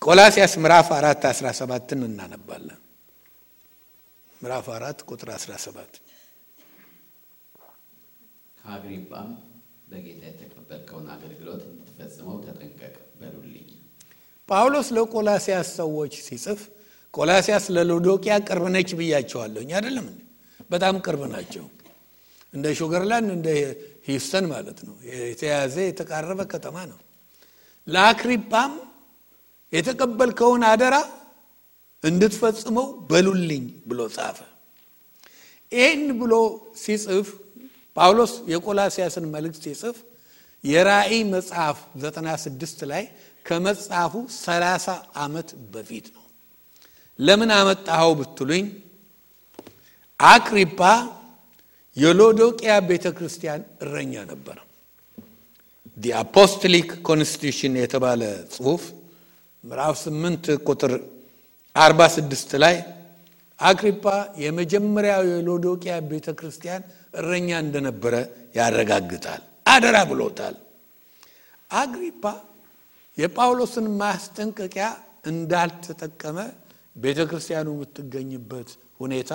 ቆላስይስ ምዕራፍ 4:17 እናነባለን። ምዕራፍ 4 ቁጥር 17 ከአግሪጳም በጌታ የተቀበልከውን አገልግሎት እንድትፈጽመው ተጠንቀቅ በሉልኝ። ጳውሎስ ለቆላስይስ ሰዎች ሲጽፍ ቆላስይስ ለሎዶቅያ ቅርብ ነች ብያቸዋለሁ አይደለም? በጣም ቅርብ ናቸው። እንደ ሹገርላንድ እንደ ሂውስተን ማለት ነው። የተያዘ የተቃረበ ከተማ ነው። ለአግሪጳም የተቀበልከውን አደራ እንድትፈጽመው በሉልኝ ብሎ ጻፈ። ይህን ብሎ ሲጽፍ ጳውሎስ የቆላስይስን መልእክት ሲጽፍ የራእይ መጽሐፍ 96 ላይ ከመጽሐፉ 30 ዓመት በፊት ነው። ለምን አመጣው ብትሉኝ አግሪጳ የሎዶቅያ ቤተክርስቲያን እረኛ ነበር። the apostolic constitution የተባለ ጽሑፍ ምዕራፍ 8 ቁጥር 46 ላይ አግሪጳ የመጀመሪያው የሎዶቅያ ቤተክርስቲያን እረኛ እንደነበረ ያረጋግጣል። አደራ ብሎታል። አግሪጳ የጳውሎስን ማስጠንቀቂያ እንዳልተጠቀመ ቤተክርስቲያኑ የምትገኝበት ሁኔታ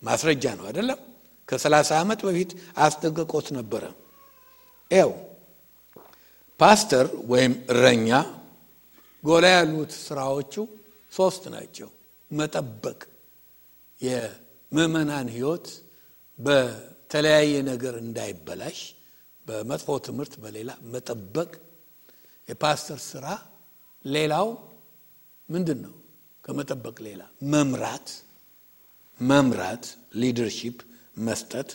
ማስረጃ ነው አይደለም? ከ30 ዓመት በፊት አስጠንቅቆት ነበረ። ኤው ፓስተር ወይም እረኛ ጎላ ያሉት ስራዎቹ 3 ናቸው። መጠበቅ፣ የምእመናን ህይወት በተለያየ ነገር እንዳይበላሽ፣ በመጥፎ ትምህርት በሌላ መጠበቅ የፓስተር ስራ። ሌላው ምንድነው? ከመጠበቅ ሌላ መምራት ሊደርሺፕ መስጠት።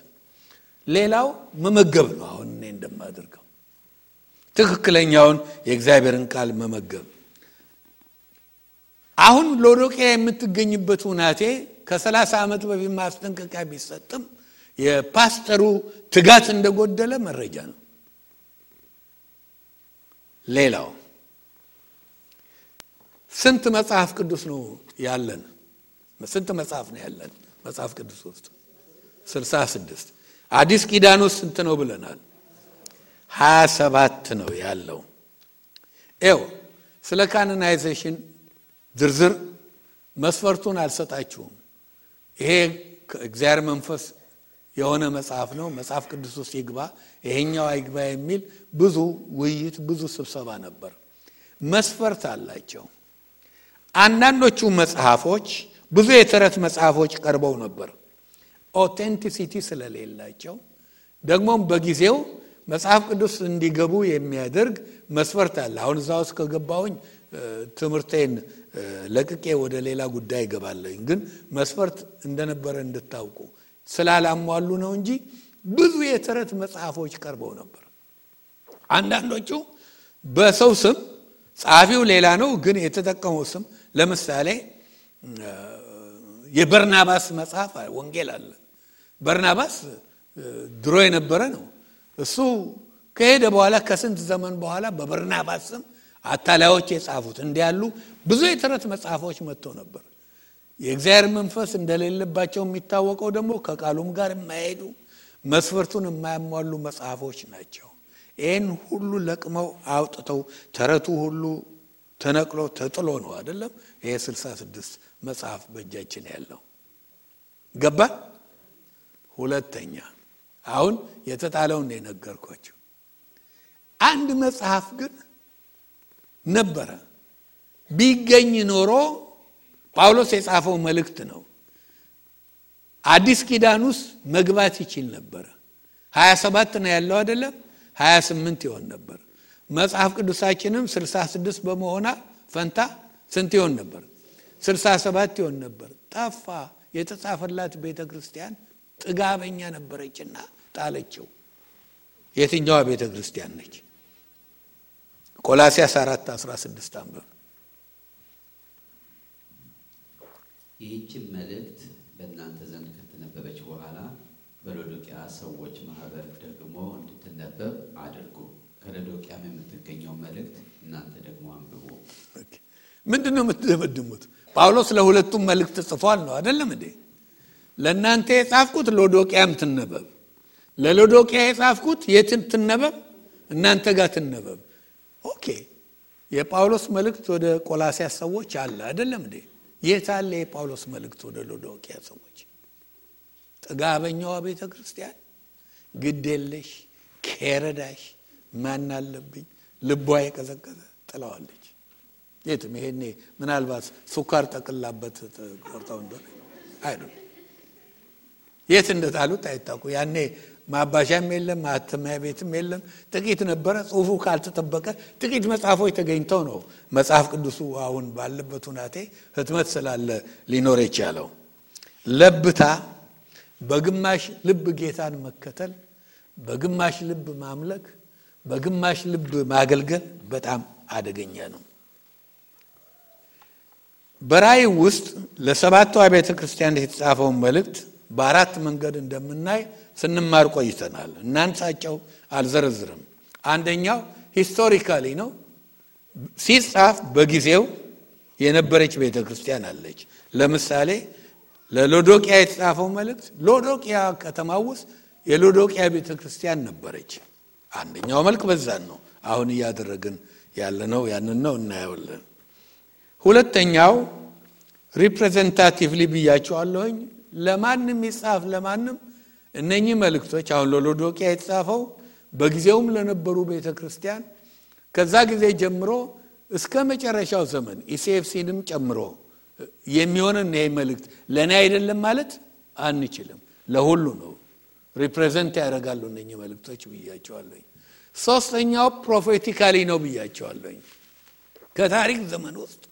ሌላው መመገብ ነው። አሁን እኔ እንደማደርገው ትክክለኛውን የእግዚአብሔርን ቃል መመገብ። አሁን ሎዶቅያ የምትገኝበት ሁናቴ ከ30 ዓመት በፊት ማስጠንቀቂያ ቢሰጥም የፓስተሩ ትጋት እንደጎደለ መረጃ ነው። ሌላው ስንት መጽሐፍ ቅዱስ ነው ያለን? ስንት መጽሐፍ ነው ያለን መጽሐፍ ቅዱስ ውስጥ? 66። አዲስ ኪዳን ውስጥ ስንት ነው ብለናል? 27 ነው ያለው። ስለ ካኖናይዜሽን ዝርዝር መስፈርቱን አልሰጣችሁም። ይሄ እግዚአብሔር መንፈስ የሆነ መጽሐፍ ነው፣ መጽሐፍ ቅዱስ ውስጥ ይግባ ይሄኛው አይግባ የሚል ብዙ ውይይት፣ ብዙ ስብሰባ ነበር። መስፈርት አላቸው። አንዳንዶቹ መጽሐፎች ብዙ የተረት መጽሐፎች ቀርበው ነበር። ኦቴንቲሲቲ ስለሌላቸው ደግሞም በጊዜው መጽሐፍ ቅዱስ እንዲገቡ የሚያደርግ መስፈርት አለ። አሁን እዛው ውስጥ ከገባሁኝ ትምህርቴን ለቅቄ ወደ ሌላ ጉዳይ ገባለኝ። ግን መስፈርት እንደነበረ እንድታውቁ ስላላሟሉ ነው እንጂ ብዙ የተረት መጽሐፎች ቀርበው ነበር። አንዳንዶቹ በሰው ስም፣ ጻፊው ሌላ ነው ግን የተጠቀመው ስም፣ ለምሳሌ የበርናባስ መጽሐፍ ወንጌል አለ። በርናባስ ድሮ የነበረ ነው። እሱ ከሄደ በኋላ ከስንት ዘመን በኋላ በበርናባስ ስም አታላዮች የጻፉት እንዲያሉ ብዙ የተረት መጽሐፎች መጥተው ነበር። የእግዚአብሔር መንፈስ እንደሌለባቸው የሚታወቀው ደግሞ ከቃሉም ጋር የማይሄዱ መስፈርቱን የማያሟሉ መጽሐፎች ናቸው። ይህን ሁሉ ለቅመው አውጥተው ተረቱ ሁሉ ተነቅሎ ተጥሎ ነው አይደለም? ይሄ 66 መጽሐፍ በእጃችን ያለው ገባ። ሁለተኛ አሁን የተጣለውን የነገርኳችሁ አንድ መጽሐፍ ግን ነበረ። ቢገኝ ኖሮ ጳውሎስ የጻፈው መልእክት ነው። አዲስ ኪዳን ውስጥ መግባት ይችል ነበር። 27 ነው ያለው አይደለም? 28 ይሆን ነበር። መጽሐፍ ቅዱሳችንም 66 በመሆና ፈንታ ስንት ይሆን ነበር? 67 ይሆን ነበር። ጠፋ። የተጻፈላት ቤተክርስቲያን ጥጋበኛ ነበረችና ጣለችው። የትኛዋ ቤተክርስቲያን ነች? ቆላስይስ 4:16 አንብብ። ይህች መልእክት በእናንተ ዘንድ ከተነበበች በኋላ በሎዶቅያ ሰዎች ማህበር ደግሞ እንድትነበብ አድርጉ። ከሎዶቅያም የምትገኘው መልእክት እናንተ ደግሞ አንብቡ። ምንድነው የምትደመድሙት? ጳውሎስ ለሁለቱም መልእክት ጽፏል ነው አይደለም እንዴ? ለእናንተ የጻፍኩት ሎዶቅያም ትነበብ፣ ለሎዶቅያ የጻፍኩት የትን ትነበብ? እናንተ ጋር ትነበብ። ኦኬ። የጳውሎስ መልእክት ወደ ቆላስይስ ሰዎች አለ አይደለም እንዴ? የት አለ የጳውሎስ መልእክት ወደ ሎዶቅያ ሰዎች? ጥጋበኛዋ ቤተክርስቲያን ግዴለሽ ከረዳሽ ማን አለብኝ ልቧ የቀዘቀዘ ጥላዋለች። የትም ይሄኔ ምናልባት ሱካር ጠቅላበት ቆርጣው እንደሆነ አይደል? የት እንደጣሉት አይታቁ። ያኔ ማባሻም የለም ማተሚያ ቤትም የለም። ጥቂት ነበረ። ጽሁፉ ካልተጠበቀ ጥቂት መጽሐፎች ተገኝተው ነው መጽሐፍ ቅዱሱ አሁን ባለበት ሁናቴ ህትመት ስላለ ሊኖር የቻለው። ለብታ በግማሽ ልብ ጌታን መከተል፣ በግማሽ ልብ ማምለክ፣ በግማሽ ልብ ማገልገል በጣም አደገኛ ነው። በራእይ ውስጥ ለሰባቱ አብያተ ክርስቲያናት የተጻፈውን መልእክት በአራት መንገድ እንደምናይ ስንማር ቆይተናል። እናንሳቸው አልዘረዝርም። አንደኛው ሂስቶሪካሊ ነው። ሲጻፍ በጊዜው የነበረች ቤተክርስቲያን አለች። ለምሳሌ ለሎዶቅያ የተጻፈው መልእክት ሎዶቅያ ከተማ ውስጥ የሎዶቅያ ቤተክርስቲያን ነበረች። አንደኛው መልክ በዛን ነው አሁን ያደረግን ያለነው ያንን ነው እናያለን። ሁለተኛው ሪፕሬዘንታቲቭሊ ብያቸዋለሁኝ። ለማንም ይጻፍ ለማንም እነኚህ መልእክቶች አሁን ለሎዶቅያ የተጻፈው በጊዜውም ለነበሩ ቤተክርስቲያን ከዛ ጊዜ ጀምሮ እስከ መጨረሻው ዘመን ኢሲኤፍሲንም ጨምሮ የሚሆነን ይሄ መልእክት ለኔ አይደለም ማለት አንችልም። ለሁሉ ነው ሪፕሬዘንት ያደርጋሉ እነኚህ መልእክቶች ብያቸዋለሁ። ሶስተኛው ፕሮፌቲካሊ ነው ብያቸዋለሁ። ከታሪክ ዘመን ውስጥ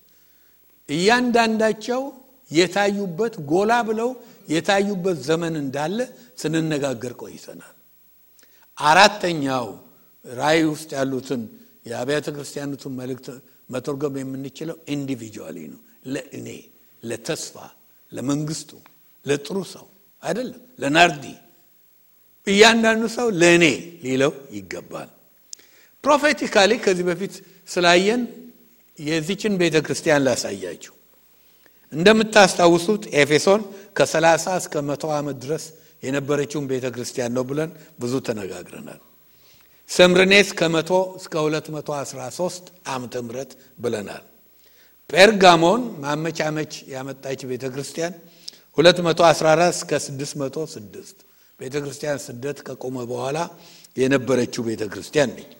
እያንዳንዳቸው የታዩበት ጎላ ብለው የታዩበት ዘመን እንዳለ ስንነጋገር ቆይተናል። አራተኛው ራእይ ውስጥ ያሉትን የአብያተ ክርስቲያናቱን መልእክት መተርጎም የምንችለው ኢንዲቪጁዋሊ ነው። ለእኔ፣ ለተስፋ፣ ለመንግስቱ፣ ለጥሩ ሰው አይደለም፣ ለናርዲ እያንዳንዱ ሰው ለእኔ ሊለው ይገባል። ፕሮፌቲካሊ ከዚህ በፊት ስላየን የዚችን ቤተክርስቲያን ላሳያችሁ። እንደምታስታውሱት ኤፌሶን ከ30 እስከ 100 ዓመት ድረስ የነበረችውን ቤተክርስቲያን ነው ብለን ብዙ ተነጋግረናል። ሰምርኔስ ከ100 እስከ 213 ዓመተ ምህረት ብለናል። ጴርጋሞን ማመቻመች ያመጣች ቤተክርስቲያን 214 እስከ 606 ቤተክርስቲያን ስደት ከቆመ በኋላ የነበረችው ቤተክርስቲያን ነች።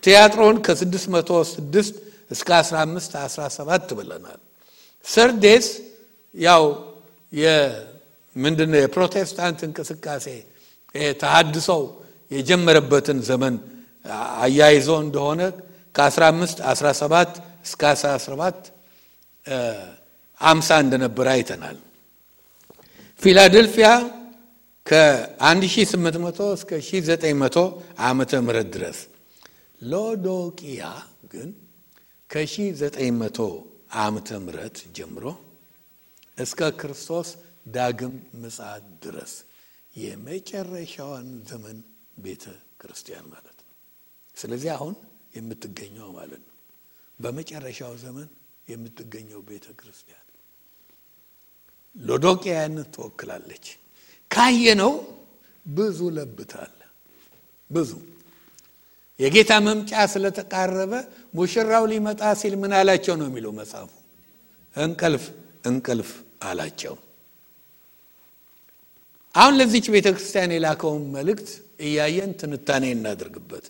ቲያጥሮን ከ606 እስከ 1517 ብለናል። ሰርዴስ ያው ምንድነው የፕሮቴስታንት እንቅስቃሴ ተሐድሶው የጀመረበትን ዘመን አያይዞ እንደሆነ ከ1517 እስከ 1750 እንደነበረ አይተናል። ፊላደልፊያ ከ1800 እስከ 1900 ዓመተ ምህረት ድረስ። ሎዶቅያ ግን ከ1900 ዓመተ ምህረት ጀምሮ እስከ ክርስቶስ ዳግም ምጽአት ድረስ የመጨረሻውን ዘመን ቤተ ክርስቲያን ማለት ነው። ስለዚህ አሁን የምትገኘው ማለት ነው በመጨረሻው ዘመን የምትገኘው ቤተ ክርስቲያን ሎዶቅያን ትወክላለች። ካየነው ብዙ ለብታል። ብዙ የጌታ መምጫ ስለተቃረበ ሙሽራው ሊመጣ ሲል ምን አላቸው ነው የሚለው መጽሐፉ? እንቅልፍ እንቅልፍ አላቸው። አሁን ለዚች ቤተክርስቲያን የላከውን መልእክት እያየን ትንታኔ እናድርግበት።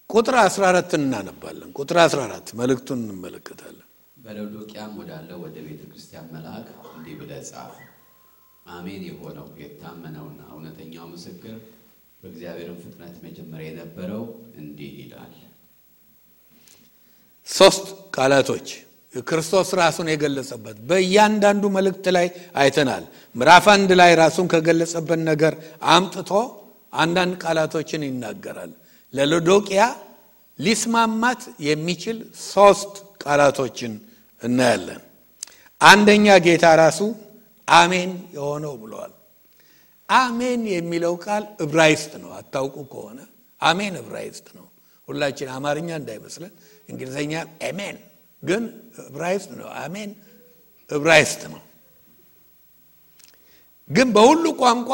ቁጥር 14 እናነባለን። ቁጥር 14 መልእክቱን እንመለከታለን። በሎዶቅያም ወዳለው ወደ ቤተክርስቲያን መልአክ እንዲህ ብለህ ጻፍ። አሜን የሆነው የታመነውና እውነተኛው ምስክር በእግዚአብሔርም ፍጥረት መጀመሪያ የነበረው እንዲህ ይላል። ሶስት ቃላቶች ክርስቶስ ራሱን የገለጸበት በእያንዳንዱ መልእክት ላይ አይተናል። ምዕራፍ 1 ላይ ራሱን ከገለጸበት ነገር አምጥቶ አንዳንድ ቃላቶችን ይናገራል። ለሎዶቅያ ሊስማማት የሚችል ሶስት ቃላቶችን እናያለን። አንደኛ ጌታ ራሱ አሜን የሆነው ብለዋል። አሜን የሚለው ቃል ዕብራይስጥ ነው። አታውቁ ከሆነ አሜን ዕብራይስጥ ነው። ሁላችን አማርኛ እንዳይመስለን እንግሊዘኛ አሜን፣ ግን ዕብራይስጥ ነው። አሜን ዕብራይስጥ ነው፣ ግን በሁሉ ቋንቋ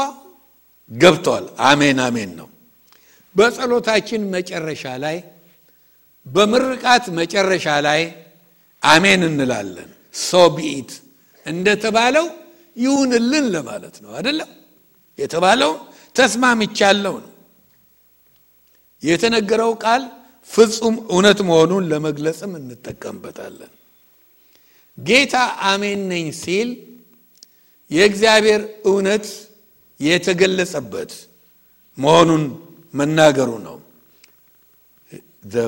ገብቷል። አሜን አሜን ነው። በጸሎታችን መጨረሻ ላይ በምርቃት መጨረሻ ላይ አሜን እንላለን። ሶቢት እንደተባለው ይሁንልን ለማለት ነው አይደለም? የተባለው ተስማምቻለሁ ነው። የተነገረው ቃል ፍጹም እውነት መሆኑን ለመግለጽም እንጠቀምበታለን። ጌታ አሜን ነኝ ሲል የእግዚአብሔር እውነት የተገለጸበት መሆኑን መናገሩ ነው። the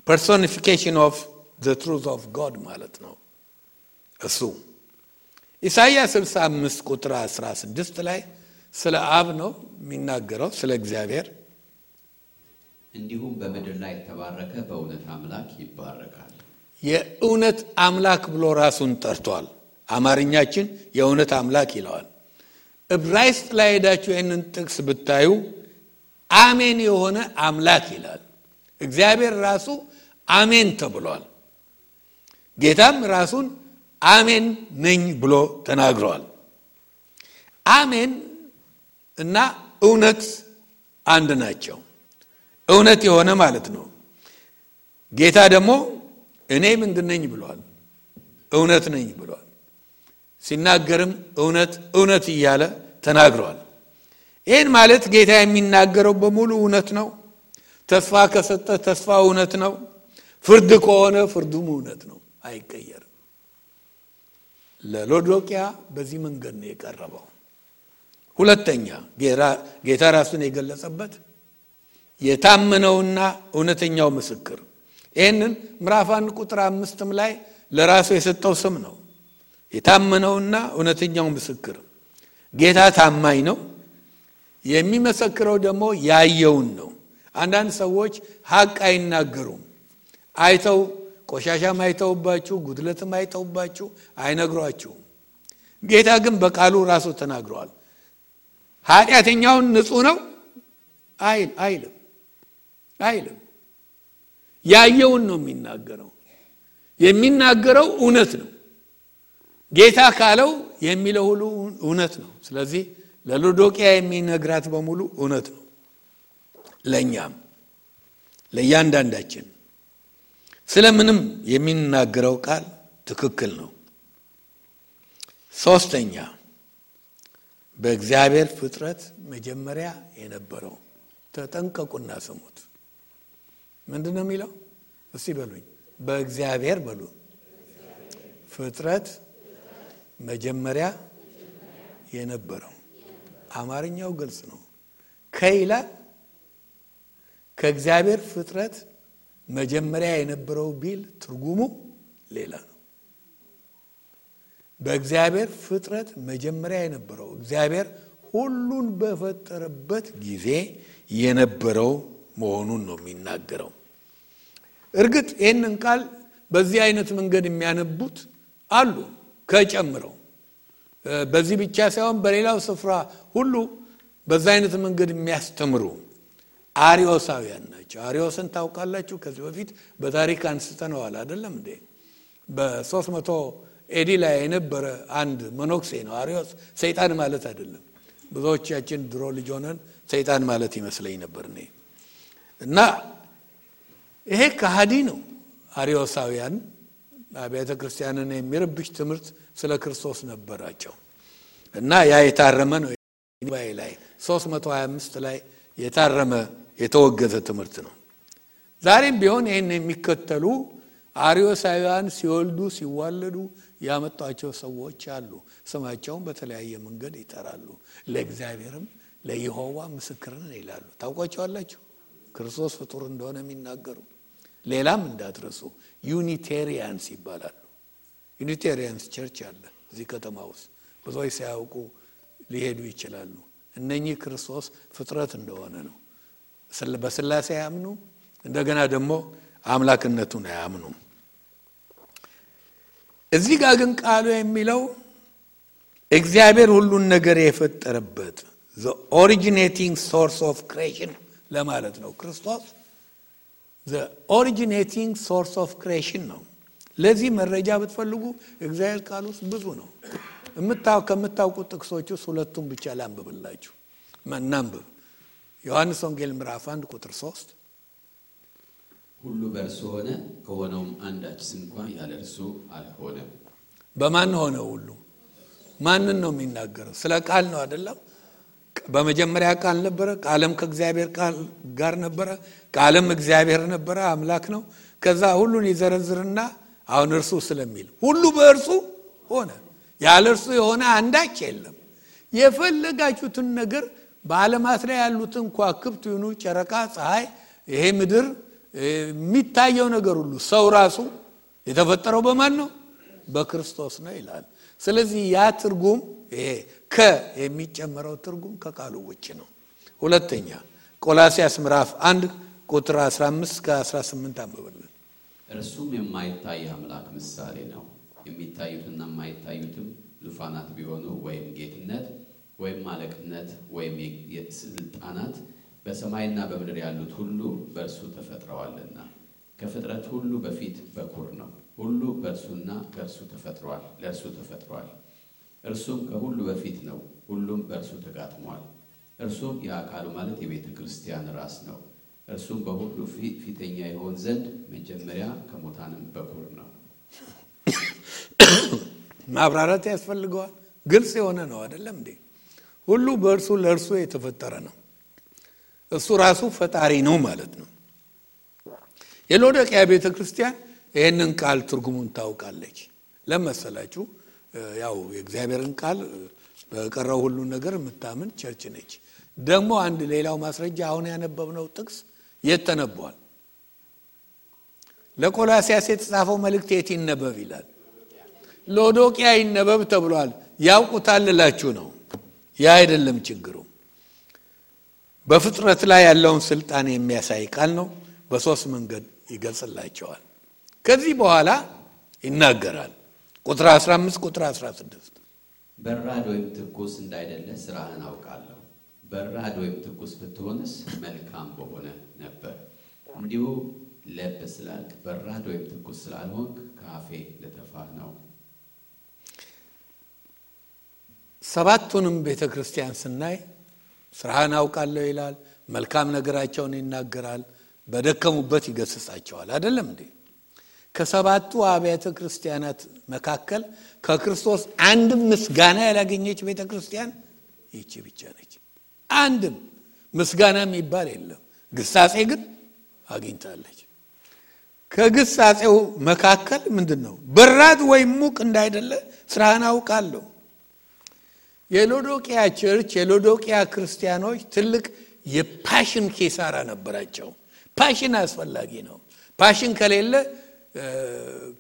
personification of the truth of God ማለት ነው እሱ። ኢሳይያስ 65 ቁጥር 16 ላይ ስለ አብ ነው የሚናገረው፣ ስለ እግዚአብሔር። እንዲሁም በምድር ላይ የተባረከ በእውነት አምላክ ይባረካል። የእውነት አምላክ ብሎ ራሱን ጠርቷል። አማርኛችን የእውነት አምላክ ይለዋል። ዕብራይስጥ ላይ ሄዳችሁ ይህንን ጥቅስ ብታዩ አሜን የሆነ አምላክ ይላል። እግዚአብሔር ራሱ አሜን ተብሏል። ጌታም ራሱን አሜን ነኝ ብሎ ተናግሯል። አሜን እና እውነት አንድ ናቸው። እውነት የሆነ ማለት ነው። ጌታ ደግሞ እኔ ምንድን ነኝ ብሏል? እውነት ነኝ ብሏል። ሲናገርም እውነት እውነት እያለ ተናግሯል። ይህን ማለት ጌታ የሚናገረው በሙሉ እውነት ነው። ተስፋ ከሰጠ ተስፋ እውነት ነው። ፍርድ ከሆነ ፍርዱም እውነት ነው፣ አይቀየርም። ለሎዶቅያ በዚህ መንገድ ነው የቀረበው። ሁለተኛ ጌታ ራሱን የገለጸበት የታመነውና እውነተኛው ምስክር። ይህንን ምዕራፍ 1 ቁጥር 5 ላይ ለራሱ የሰጠው ስም ነው። የታመነውና እውነተኛው ምስክር። ጌታ ታማኝ ነው። የሚመሰክረው ደግሞ ያየውን ነው። አንዳንድ ሰዎች ሐቅ አይናገሩም። አይተው ቆሻሻም አይተውባችሁ ጉድለትም አይተውባችሁ አይነግሯችሁም። ጌታ ግን በቃሉ ራሱ ተናግሯል። ኃጢአተኛውን ንጹህ ነው አይልም። ያየውን ነው የሚናገረው። የሚናገረው እውነት ነው። ጌታ ካለው የሚለው ሁሉ እውነት ነው። ስለዚህ ለሎዶቅያ የሚነግራት በሙሉ እውነት ነው። ለኛም ለእያንዳንዳችን ስለምንም የሚናገረው ቃል ትክክል ነው። ሶስተኛ በእግዚአብሔር ፍጥረት መጀመሪያ የነበረው። ተጠንቀቁና ስሙት። ምንድነው የሚለው? እስቲ በሉኝ። በእግዚአብሔር በሉ። ፍጥረት መጀመሪያ የነበረው። አማርኛው ግልጽ ነው። ከይላል ከእግዚአብሔር ፍጥረት መጀመሪያ የነበረው ቢል ትርጉሙ ሌላ ነው። በእግዚአብሔር ፍጥረት መጀመሪያ የነበረው እግዚአብሔር ሁሉን በፈጠረበት ጊዜ የነበረው መሆኑን ነው የሚናገረው። እርግጥ ይህንን ቃል በዚህ አይነት መንገድ የሚያነቡት አሉ ከጨምረው። በዚህ ብቻ ሳይሆን በሌላው ስፍራ ሁሉ በዛ አይነት መንገድ የሚያስተምሩ አሪዮሳውያን ናቸው። አሪዮስን ታውቃላችሁ? ከዚህ በፊት በታሪክ አንስተነዋል አይደለም እንዴ? በ300 ኤዲ ላይ የነበረ አንድ መነኩሴ ነው አሪዮስ። ሰይጣን ማለት አይደለም። ብዙዎቻችን ድሮ ልጅ ሆነን ሰይጣን ማለት ይመስለኝ ነበር እኔ። እና ይሄ ከሃዲ ነው። አሪዮሳውያን አብያተ ክርስቲያንን የሚረብሽ ትምህርት ስለ ክርስቶስ ነበራቸው። እና ያ የታረመ ነው። ላይ 325 ላይ የታረመ የተወገዘ ትምህርት ነው። ዛሬም ቢሆን ይሄን የሚከተሉ አሪዮሳውያን ሲወልዱ ሲዋለዱ ያመጣቸው ሰዎች አሉ። ስማቸውን በተለያየ መንገድ ይጠራሉ። ለእግዚአብሔርም ለይሖዋ ምስክር ነን ይላሉ። ታውቋቸዋላችሁ? ክርስቶስ ፍጡር እንደሆነ የሚናገሩ። ሌላም እንዳትረሱ ዩኒቴሪያንስ ይባላሉ። ዩኒቴሪያንስ ቸርች አለ እዚህ ከተማ ውስጥ። ብዙዎች ሳያውቁ ሊሄዱ ይችላሉ። እነኚህ ክርስቶስ ፍጥረት እንደሆነ ነው። በስላሴ ያምኑ፣ እንደገና ደግሞ አምላክነቱን ያምኑ። እዚህ ጋር ግን ቃሉ የሚለው እግዚአብሔር ሁሉን ነገር የፈጠረበት the originating source of creation ለማለት ነው። ክርስቶስ the originating source of creation ነው። ለዚህ መረጃ ብትፈልጉ እግዚአብሔር ቃል ውስጥ ብዙ ነው። ከምታውቁት ጥቅሶች ውስጥ ሁለቱን ብቻ ላንብብላችሁ። እናንብብ። ዮሐንስ ወንጌል ምዕራፍ 1 ቁጥር 3 ሁሉ በእርሱ ሆነ፣ ከሆነውም አንዳች እንኳን ያለ እርሱ አልሆነም። በማን ሆነ? ሁሉ ማንን ነው የሚናገረው? ስለ ቃል ነው አይደለም? በመጀመሪያ ቃል ነበረ፣ ቃልም ከእግዚአብሔር ጋር ነበረ፣ ቃልም እግዚአብሔር ነበረ፣ አምላክ ነው። ከዛ ሁሉን ይዘረዝርና አሁን እርሱ ስለሚል ሁሉ በእርሱ ሆነ፣ ያለ እርሱ የሆነ አንዳች የለም። የፈለጋችሁትን ነገር በዓለማት ላይ ያሉትን ከዋክብት ይሁኑ፣ ጨረቃ፣ ፀሐይ፣ ይሄ ምድር የሚታየው ነገር ሁሉ ሰው ራሱ የተፈጠረው በማን ነው? በክርስቶስ ነው ይላል። ስለዚህ ያ ትርጉም ይሄ የሚጨመረው ትርጉም ከቃሉ ውጭ ነው። ሁለተኛ ቆላስይስ ምዕራፍ 1 ቁጥር 15-18 አንብበልን። እርሱም የማይታይ አምላክ ምሳሌ ነው። የሚታዩትና የማይታዩትም ዙፋናት ቢሆኑ ወይም ጌትነት ወይም አለቅነት ወይም የስልጣናት በሰማይና በምድር ያሉት ሁሉ በእርሱ ተፈጥረዋልና ከፍጥረት ሁሉ በፊት በኩር ነው። ሁሉ በእርሱና ከእርሱ ተፈጥሯል፣ ለእርሱ ተፈጥሯል። እርሱም ከሁሉ በፊት ነው፣ ሁሉም በእርሱ ተጋጥሟል። እርሱም የአካሉ ማለት የቤተ ክርስቲያን ራስ ነው። እርሱም በሁሉ ፊተኛ ይሆን ዘንድ መጀመሪያ ከሙታንም በኩር ነው። ማብራራት ያስፈልገዋል። ግልጽ የሆነ ነው አይደለም እንዴ? ሁሉ በእርሱ ለእርሱ የተፈጠረ ነው። እሱ ራሱ ፈጣሪ ነው ማለት ነው። የሎዶቅያ ቤተ ክርስቲያን ይህንን ቃል ትርጉሙን ታውቃለች። ለመሰላችሁ ያው የእግዚአብሔርን ቃል በቀረው ሁሉ ነገር የምታምን ቸርች ነች። ደግሞ አንድ ሌላው ማስረጃ አሁን ያነበብነው ጥቅስ የት ተነበዋል? ለቆላስይስ የተጻፈው መልእክት የት ይነበብ ይላል? ሎዶቅያ ይነበብ ተብሏል። ያውቁታል እላችሁ ነው። ያ አይደለም ችግሩ። በፍጥረት ላይ ያለውን ስልጣን የሚያሳይ ቃል ነው። በሶስት መንገድ ይገልጽላቸዋል። ከዚህ በኋላ ይናገራል። ቁጥር 15 ቁጥር 16 በራድ ወይም ትኩስ እንዳይደለ ስራህን አውቃለሁ። በራድ ወይም ትኩስ ብትሆንስ መልካም በሆነ ነበር። እንዲሁ ለብ ስላልክ በራድ ወይም ትኩስ ስላልሆንክ ከአፌ ልተፋህ ነው። ሰባቱንም ቤተ ክርስቲያን ስናይ ስራህን አውቃለሁ ይላል። መልካም ነገራቸውን ይናገራል። በደከሙበት ይገስጻቸዋል አይደለም እንዴ? ከሰባቱ አብያተ ክርስቲያናት መካከል ከክርስቶስ አንድም ምስጋና ያላገኘች ቤተ ክርስቲያን ይህች ብቻ ነች። አንድም ምስጋና የሚባል የለም። ግሳጼ ግን አግኝታለች። ከግሳጼው መካከል ምንድነው? በራድ ወይም ሙቅ እንዳይደለ ስራህን አውቃለሁ። የሎዶቅያ ቸርች የሎዶቅያ ክርስቲያኖች ትልቅ የፓሽን ኪሳራ ነበራቸው። ፓሽን አስፈላጊ ነው። ፓሽን ከሌለ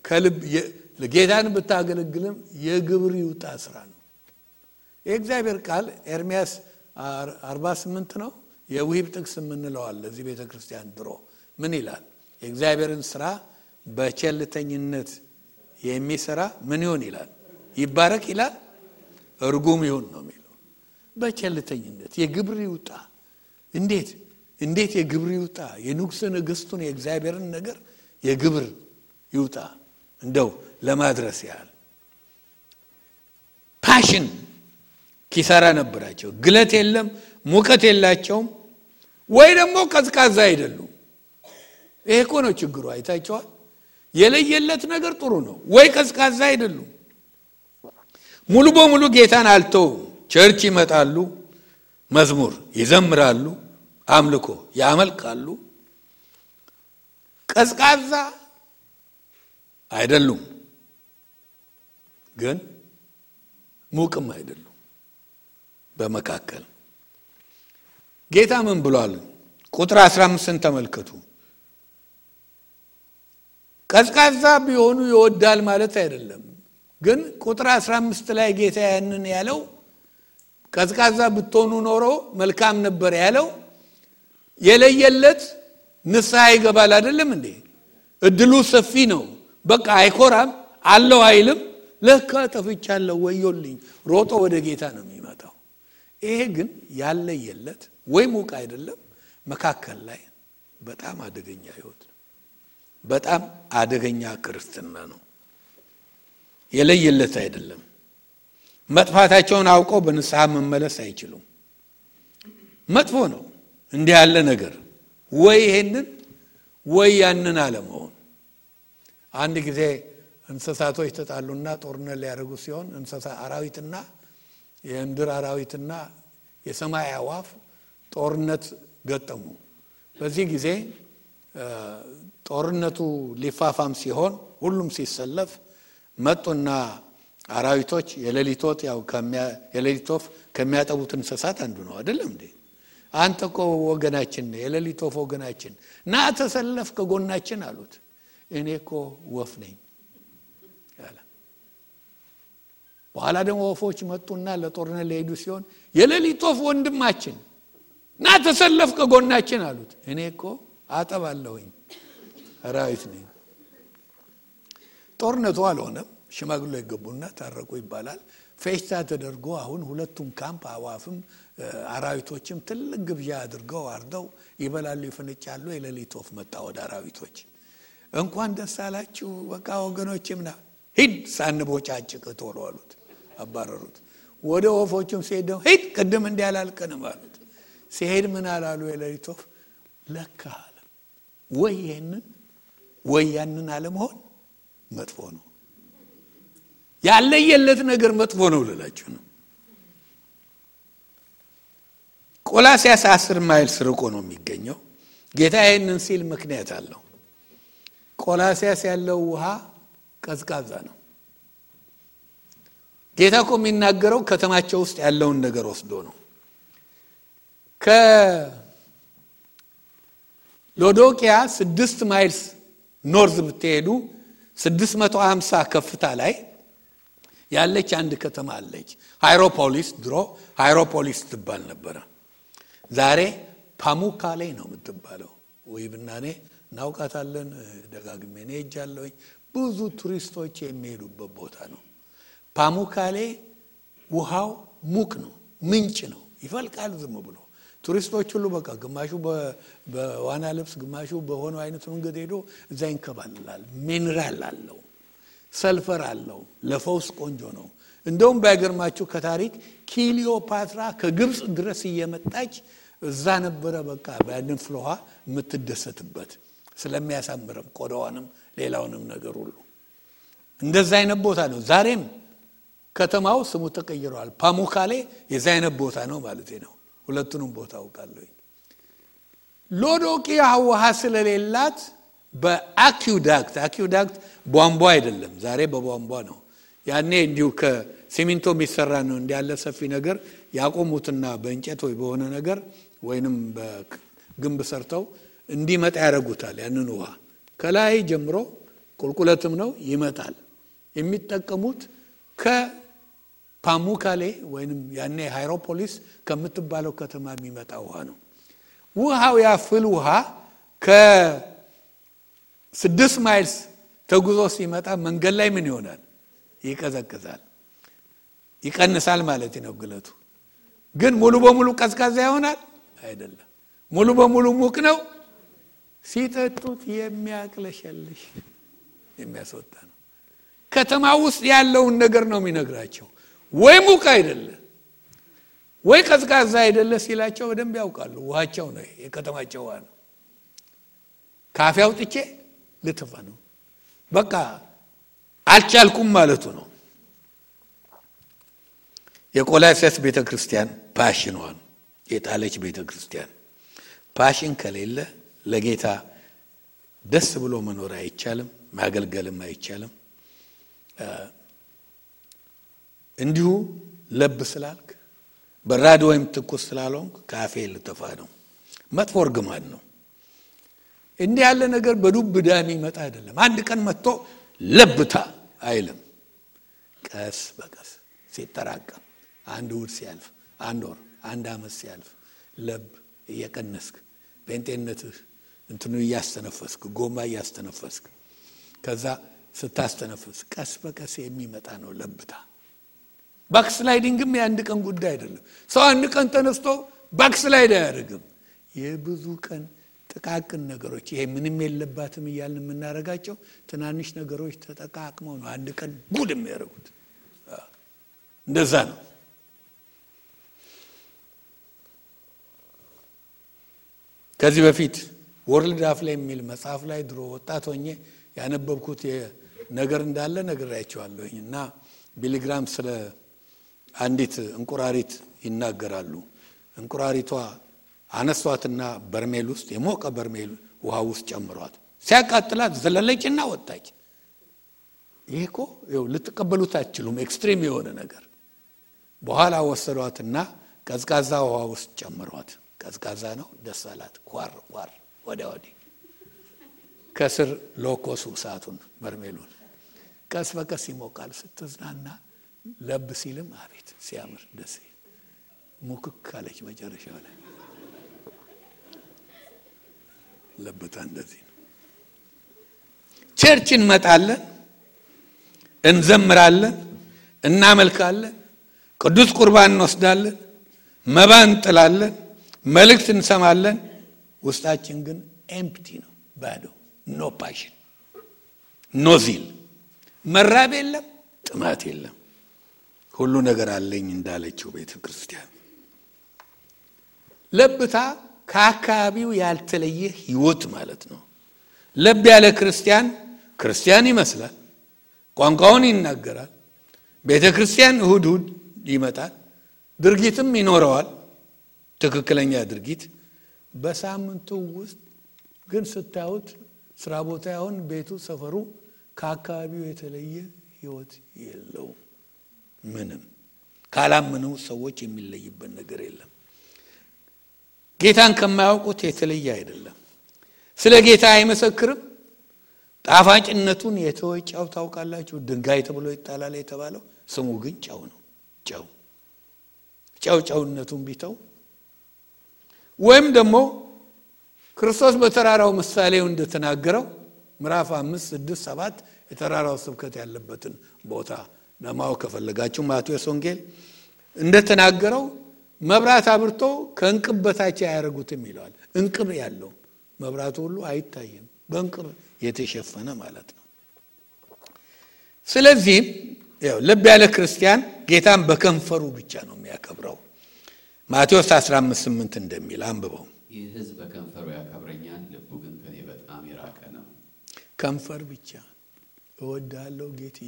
ከልብ ጌታን ብታገለግልም የግብር ይውጣ ስራ ነው። የእግዚአብሔር ቃል ኤርምያስ 48 ነው። የውሂብ ጥቅስ የምንለዋል ለዚህ ቤተ ክርስቲያን ድሮ ምን ይላል? የእግዚአብሔርን ስራ በቸልተኝነት የሚሰራ ምን ይሆን ይላል? ይባረክ ይላል? እርጉም ይሁን ነው የሚለው። በቸልተኝነት የግብር ይውጣ። እንዴት የግብር ይውጣ? የንጉሥ ነገሥቱን የእግዚአብሔርን ነገር የግብር ይውጣ እንደው ለማድረስ ያህል ፓሽን ኪሳራ ነበራቸው። ግለት የለም፣ ሙቀት የላቸውም፣ ወይ ደግሞ ቀዝቃዛ አይደሉም። ይሄ እኮ ነው ችግሩ። አይታቸዋል። የለየለት ነገር ጥሩ ነው፣ ወይ ቀዝቃዛ አይደሉም። ሙሉ በሙሉ ጌታን አልተው ቸርች ይመጣሉ፣ መዝሙር ይዘምራሉ፣ አምልኮ ያመልካሉ። ቀዝቃዛ አይደሉም፣ ግን ሙቅም አይደሉም። በመካከል ጌታ ምን ብሏል? ቁጥር 15ን ተመልከቱ። ቀዝቃዛ ቢሆኑ ይወዳል ማለት አይደለም። ግን ቁጥር 15 ላይ ጌታ ያንን ያለው ቀዝቃዛ ብትሆኑ ኖሮ መልካም ነበር ያለው የለየለት ንስሐ ይገባል አይደለም እንዴ? እድሉ ሰፊ ነው። በቃ አይኮራም አለው አይልም። ለካ ጠፍቻለሁ ወዮልኝ ሮጦ ወደ ጌታ ነው የሚመጣው። ይሄ ግን ያለየለት ወይ ሙቅ አይደለም፣ መካከል ላይ በጣም አደገኛ ህይወት ነው። በጣም አደገኛ ክርስትና ነው። የለየለት አይደለም። መጥፋታቸውን አውቀው በንስሐ መመለስ አይችሉም። መጥፎ ነው እንዲህ ያለ ነገር። ወይ ይሄንን ወይ ያንን አለመሆን። አንድ ጊዜ እንስሳቶች ተጣሉና ጦርነት ሊያደርጉ ሲሆን እንስሳ አራዊትና የምድር አራዊትና የሰማይ አዋፍ ጦርነት ገጠሙ። በዚህ ጊዜ ጦርነቱ ሊፋፋም ሲሆን ሁሉም ሲሰለፍ መጡና አራዊቶች የሌሊት ወፍ ከሚያጠቡት እንስሳት አንዱ ነው አይደለም እንዴ? አንተ እኮ ወገናችን ነህ፣ የሌሊት ወፍ ወገናችን ና ተሰለፍ ከጎናችን አሉት። እኔ እኮ ወፍ ነኝ ያለ። በኋላ ደግሞ ወፎች መጡና ለጦርነት ሊሄዱ ሲሆን የሌሊት ወፍ ወንድማችን ና ተሰለፍ ከጎናችን አሉት። እኔ እኮ አጠባለሁኝ አራዊት ነኝ። ጦርነቱ አልሆነም። ሽማግሌ ይገቡና ታረቁ ይባላል። ፌሽታ ተደርጎ አሁን ሁለቱም ካምፕ አዋፍም አራዊቶችም ትልቅ ግብዣ አድርገው አርደው ይበላሉ፣ ይፈነጫሉ። የሌሊት ወፍ መጣ ወደ አራዊቶች። እንኳን ደስ አላችሁ በቃ ወገኖችምና ሂድ ሳንቦጫጭቅ ቶሎ አሉት። አባረሩት። ወደ ወፎቹም ሲሄድ ሂድ ቅድም እንዲያላልቀንም አሉት። ሲሄድ ምን አላሉ? የሌሊት ወፍ ለካ አለ ወይ ይሄንን ወይ ያንን አለመሆን መጥፎ ነው። ያለየለት ነገር መጥፎ ነው ልላችሁ ነው። ቆላስይስ 10 ማይልስ ርቆ ነው የሚገኘው። ጌታ ይሄንን ሲል ምክንያት አለው። ቆላስይስ ያለው ውሃ ቀዝቃዛ ነው። ጌታ እኮ የሚናገረው ከተማቸው ውስጥ ያለውን ነገር ወስዶ ነው። ከሎዶቅያ 6 ማይልስ ኖርዝ ብትሄዱ 650 ከፍታ ላይ ያለች አንድ ከተማ አለች። ሃይሮፖሊስ። ድሮ ሃይሮፖሊስ ትባል ነበር። ዛሬ ፓሙካሌ ነው የምትባለው። ወይ ብናኔ እናውቃታለን። ደጋግሜ ነው ሄጃለሁ። ብዙ ቱሪስቶች የሚሄዱበት ቦታ ነው። ፓሙካሌ ውሃው ሙቅ ነው፣ ምንጭ ነው፣ ይፈልቃል ዝም ብሎ። ቱሪስቶች ሁሉ በቃ ግማሹ በዋና ልብስ ግማሹ በሆነ አይነት መንገድ ሄዶ እዛ ይንከባለላል። ሚነራል አለው፣ ሰልፈር አለው፣ ለፈውስ ቆንጆ ነው። እንደውም ባይገርማችሁ ከታሪክ ክሊዮፓትራ ከግብጽ ድረስ እየመጣች እዛ ነበረ በቃ በያንን ፍሎሃ የምትደሰትበት ስለሚያሳምረም ቆዳዋንም ሌላውንም ነገር ሁሉ። እንደዛ አይነት ቦታ ነው። ዛሬም ከተማው ስሙ ተቀይሯል። ፓሙካሌ የዛ አይነት ቦታ ነው ማለት ነው። ሁለቱንም ቦታ አውቃለሁ። ሎዶቅያ ውሃ ስለሌላት በአኪውዳክት ቧንቧ አይደለም፣ ዛሬ በቧንቧ ነው። ያኔ እንዲሁ ከሲሚንቶ የሚሰራ ነው እንዲያለ ሰፊ ነገር ያቆሙትና በእንጨት ወይ በሆነ ነገር ወይንም በግንብ ሰርተው እንዲመጣ ያደርጉታል። ያንን ውሃ ከላይ ጀምሮ ቁልቁለትም ነው ይመጣል። የሚጠቀሙት ከፓሙካሌ ወይንም ያኔ ሃይሮፖሊስ ከምትባለው ከተማ የሚመጣ ውሃ ነው። ውሃው ያፍል ውሃ ከ6 ማይልስ ተጉዞ ሲመጣ መንገድ ላይ ምን ይሆናል? ይቀዘቅዛል፣ ይቀንሳል ማለት ነው ግለቱ። ግን ሙሉ በሙሉ ቀዝቃዛ ይሆናል አይደለም። ሙሉ በሙሉ ሙቅ ነው። ሲጠጡት የሚያቅለሸልሽ የሚያስወጣ ነው። ከተማ ውስጥ ያለውን ነገር ነው የሚነግራቸው። ወይ ሙቅ አይደለ ወይ ቀዝቃዛ አይደለ ሲላቸው በደንብ ያውቃሉ። ውሃቸው ነው የከተማቸው ውሃ ነው። ካፌ አውጥቼ ልትፋ ነው በቃ አልቻልኩም ማለቱ ነው። የቆላስይስ ቤተክርስቲያን ፓሽኗን የጣለች ቤተክርስቲያን። ፓሽን ከሌለ ለጌታ ደስ ብሎ መኖር አይቻልም፣ ማገልገልም አይቻልም። እንዲሁ ለብ ስላልክ በራድ ወይም ትኩስ ስላልሆንክ ካፌ ልተፋ ነው። መጥፎ እርግማን ነው። እንዲህ ያለ ነገር በዱብ እዳ የሚመጣ አይደለም። አንድ ቀን መጥቶ ለብታ አይልም። ቀስ በቀስ ሲጠራቀም አንድ ወር ሲያልፍ፣ አንድ ወር፣ አንድ አመት ሲያልፍ ለብ እየቀነስክ በእንጤነትህ እንትኑ እያስተነፈስክ ጎማ እያስተነፈስክ ከዛ ስታስተነፍስ ቀስ በቀስ የሚመጣ ነው ለብታ። ባክስላይዲንግም የአንድ ቀን ጉዳይ አይደለም። ሰው አንድ ቀን ተነስቶ ባክስላይድ አያደርግም። የብዙ ቀን ጥቃቅን ነገሮች ይሄ ምንም የለባትም እያልን የምናረጋቸው ትናንሽ ነገሮች ተጠቃቅመው ነው አንድ ቀን ጉድ የሚያደርጉት። እንደዛ ነው። ከዚህ በፊት ወርልድ አፍላ የሚል መጽሐፍ ላይ ድሮ ወጣት ሆኜ ያነበብኩት ነገር እንዳለ ነግራያቸዋለሁኝ እና ቢሊግራም ስለ አንዲት እንቁራሪት ይናገራሉ። እንቁራሪቷ አነሷትና በርሜል ውስጥ የሞቀ በርሜል ውሃ ውስጥ ጨምሯት ሲያቃጥላት ዘለለችና ወጣች። ይሄኮ ልትቀበሉት አትችሉም፣ ኤክስትሪም የሆነ ነገር። በኋላ ወሰዷትና ቀዝቃዛ ውሃ ውስጥ ጨምሯት። ቀዝቃዛ ነው፣ ደስ አላት። ቋር ቋር ወዲያ ወዲህ ከስር ሎኮሱ እሳቱን በርሜሉን ቀስ በቀስ ይሞቃል። ስትዝናና ለብ ሲልም አቤት ሲያምር ደስ ይል ሙክክ አለች መጨረሻው ላይ። ለብታ እንደዚህ ነው። ቸርች እንመጣለን፣ እንዘምራለን፣ እናመልካለን፣ ቅዱስ ቁርባን እንወስዳለን፣ መባ እንጥላለን፣ መልእክት እንሰማለን። ውስጣችን ግን ኤምፕቲ ነው፣ ባዶ። ኖ ፓሽን፣ ኖ ዚል፣ መራብ የለም፣ ጥማት የለም። ሁሉ ነገር አለኝ እንዳለችው ቤተክርስቲያን። ለብታ ከአካባቢው ያልተለየ ህይወት ማለት ነው። ለብ ያለ ክርስቲያን ይመስላል፣ ቋንቋውን ይናገራል፣ ቤተክርስቲያን እሁድ ይመጣል፣ ድርጊትም ይኖረዋል፣ ትክክለኛ ድርጊት። በሳምንቱ ውስጥ ግን ስታዩት ስራ ቦታ ያውን ቤቱ ሰፈሩ ከአካባቢው የተለየ ህይወት የለውም። ምንም ካላመኑ ሰዎች የሚለይበት ነገር የለም። ጌታን ከማያውቁት የተለየ አይደለም። ስለ ጌታ አይመሰክርም። ጣፋጭነቱን የተወጫው ታውቃላችሁ። ድንጋይ ተብሎ ይጣላል የተባለው ስሙ ግን ጨው ነው። ጨውነቱን ቢተው ወይም ደግሞ ክርስቶስ በተራራው ምሳሌው እንደተናገረው ምዕራፍ 5 6 7 የተራራው ስብከት ያለበትን ቦታ ለማወቅ ከፈለጋችሁ ማቴዎስ ወንጌል እንደተናገረው መብራት አብርቶ ከእንቅብ በታች አያረጉትም ይላል። እንቅብ ያለው መብራቱ ሁሉ አይታይም፣ በእንቅብ የተሸፈነ ማለት ነው። ስለዚህ ልብ ያለ ክርስቲያን ጌታን በከንፈሩ ብቻ ነው የሚያከብረው። ማቴዎስ 15:8 እንደሚል አንብበው። ይህ ሕዝብ በከንፈሩ ያከብረኛል፣ ልቡ ግን ከኔ በጣም የራቀ ነው። ከንፈር ብቻ እወዳለሁ ጌቴ።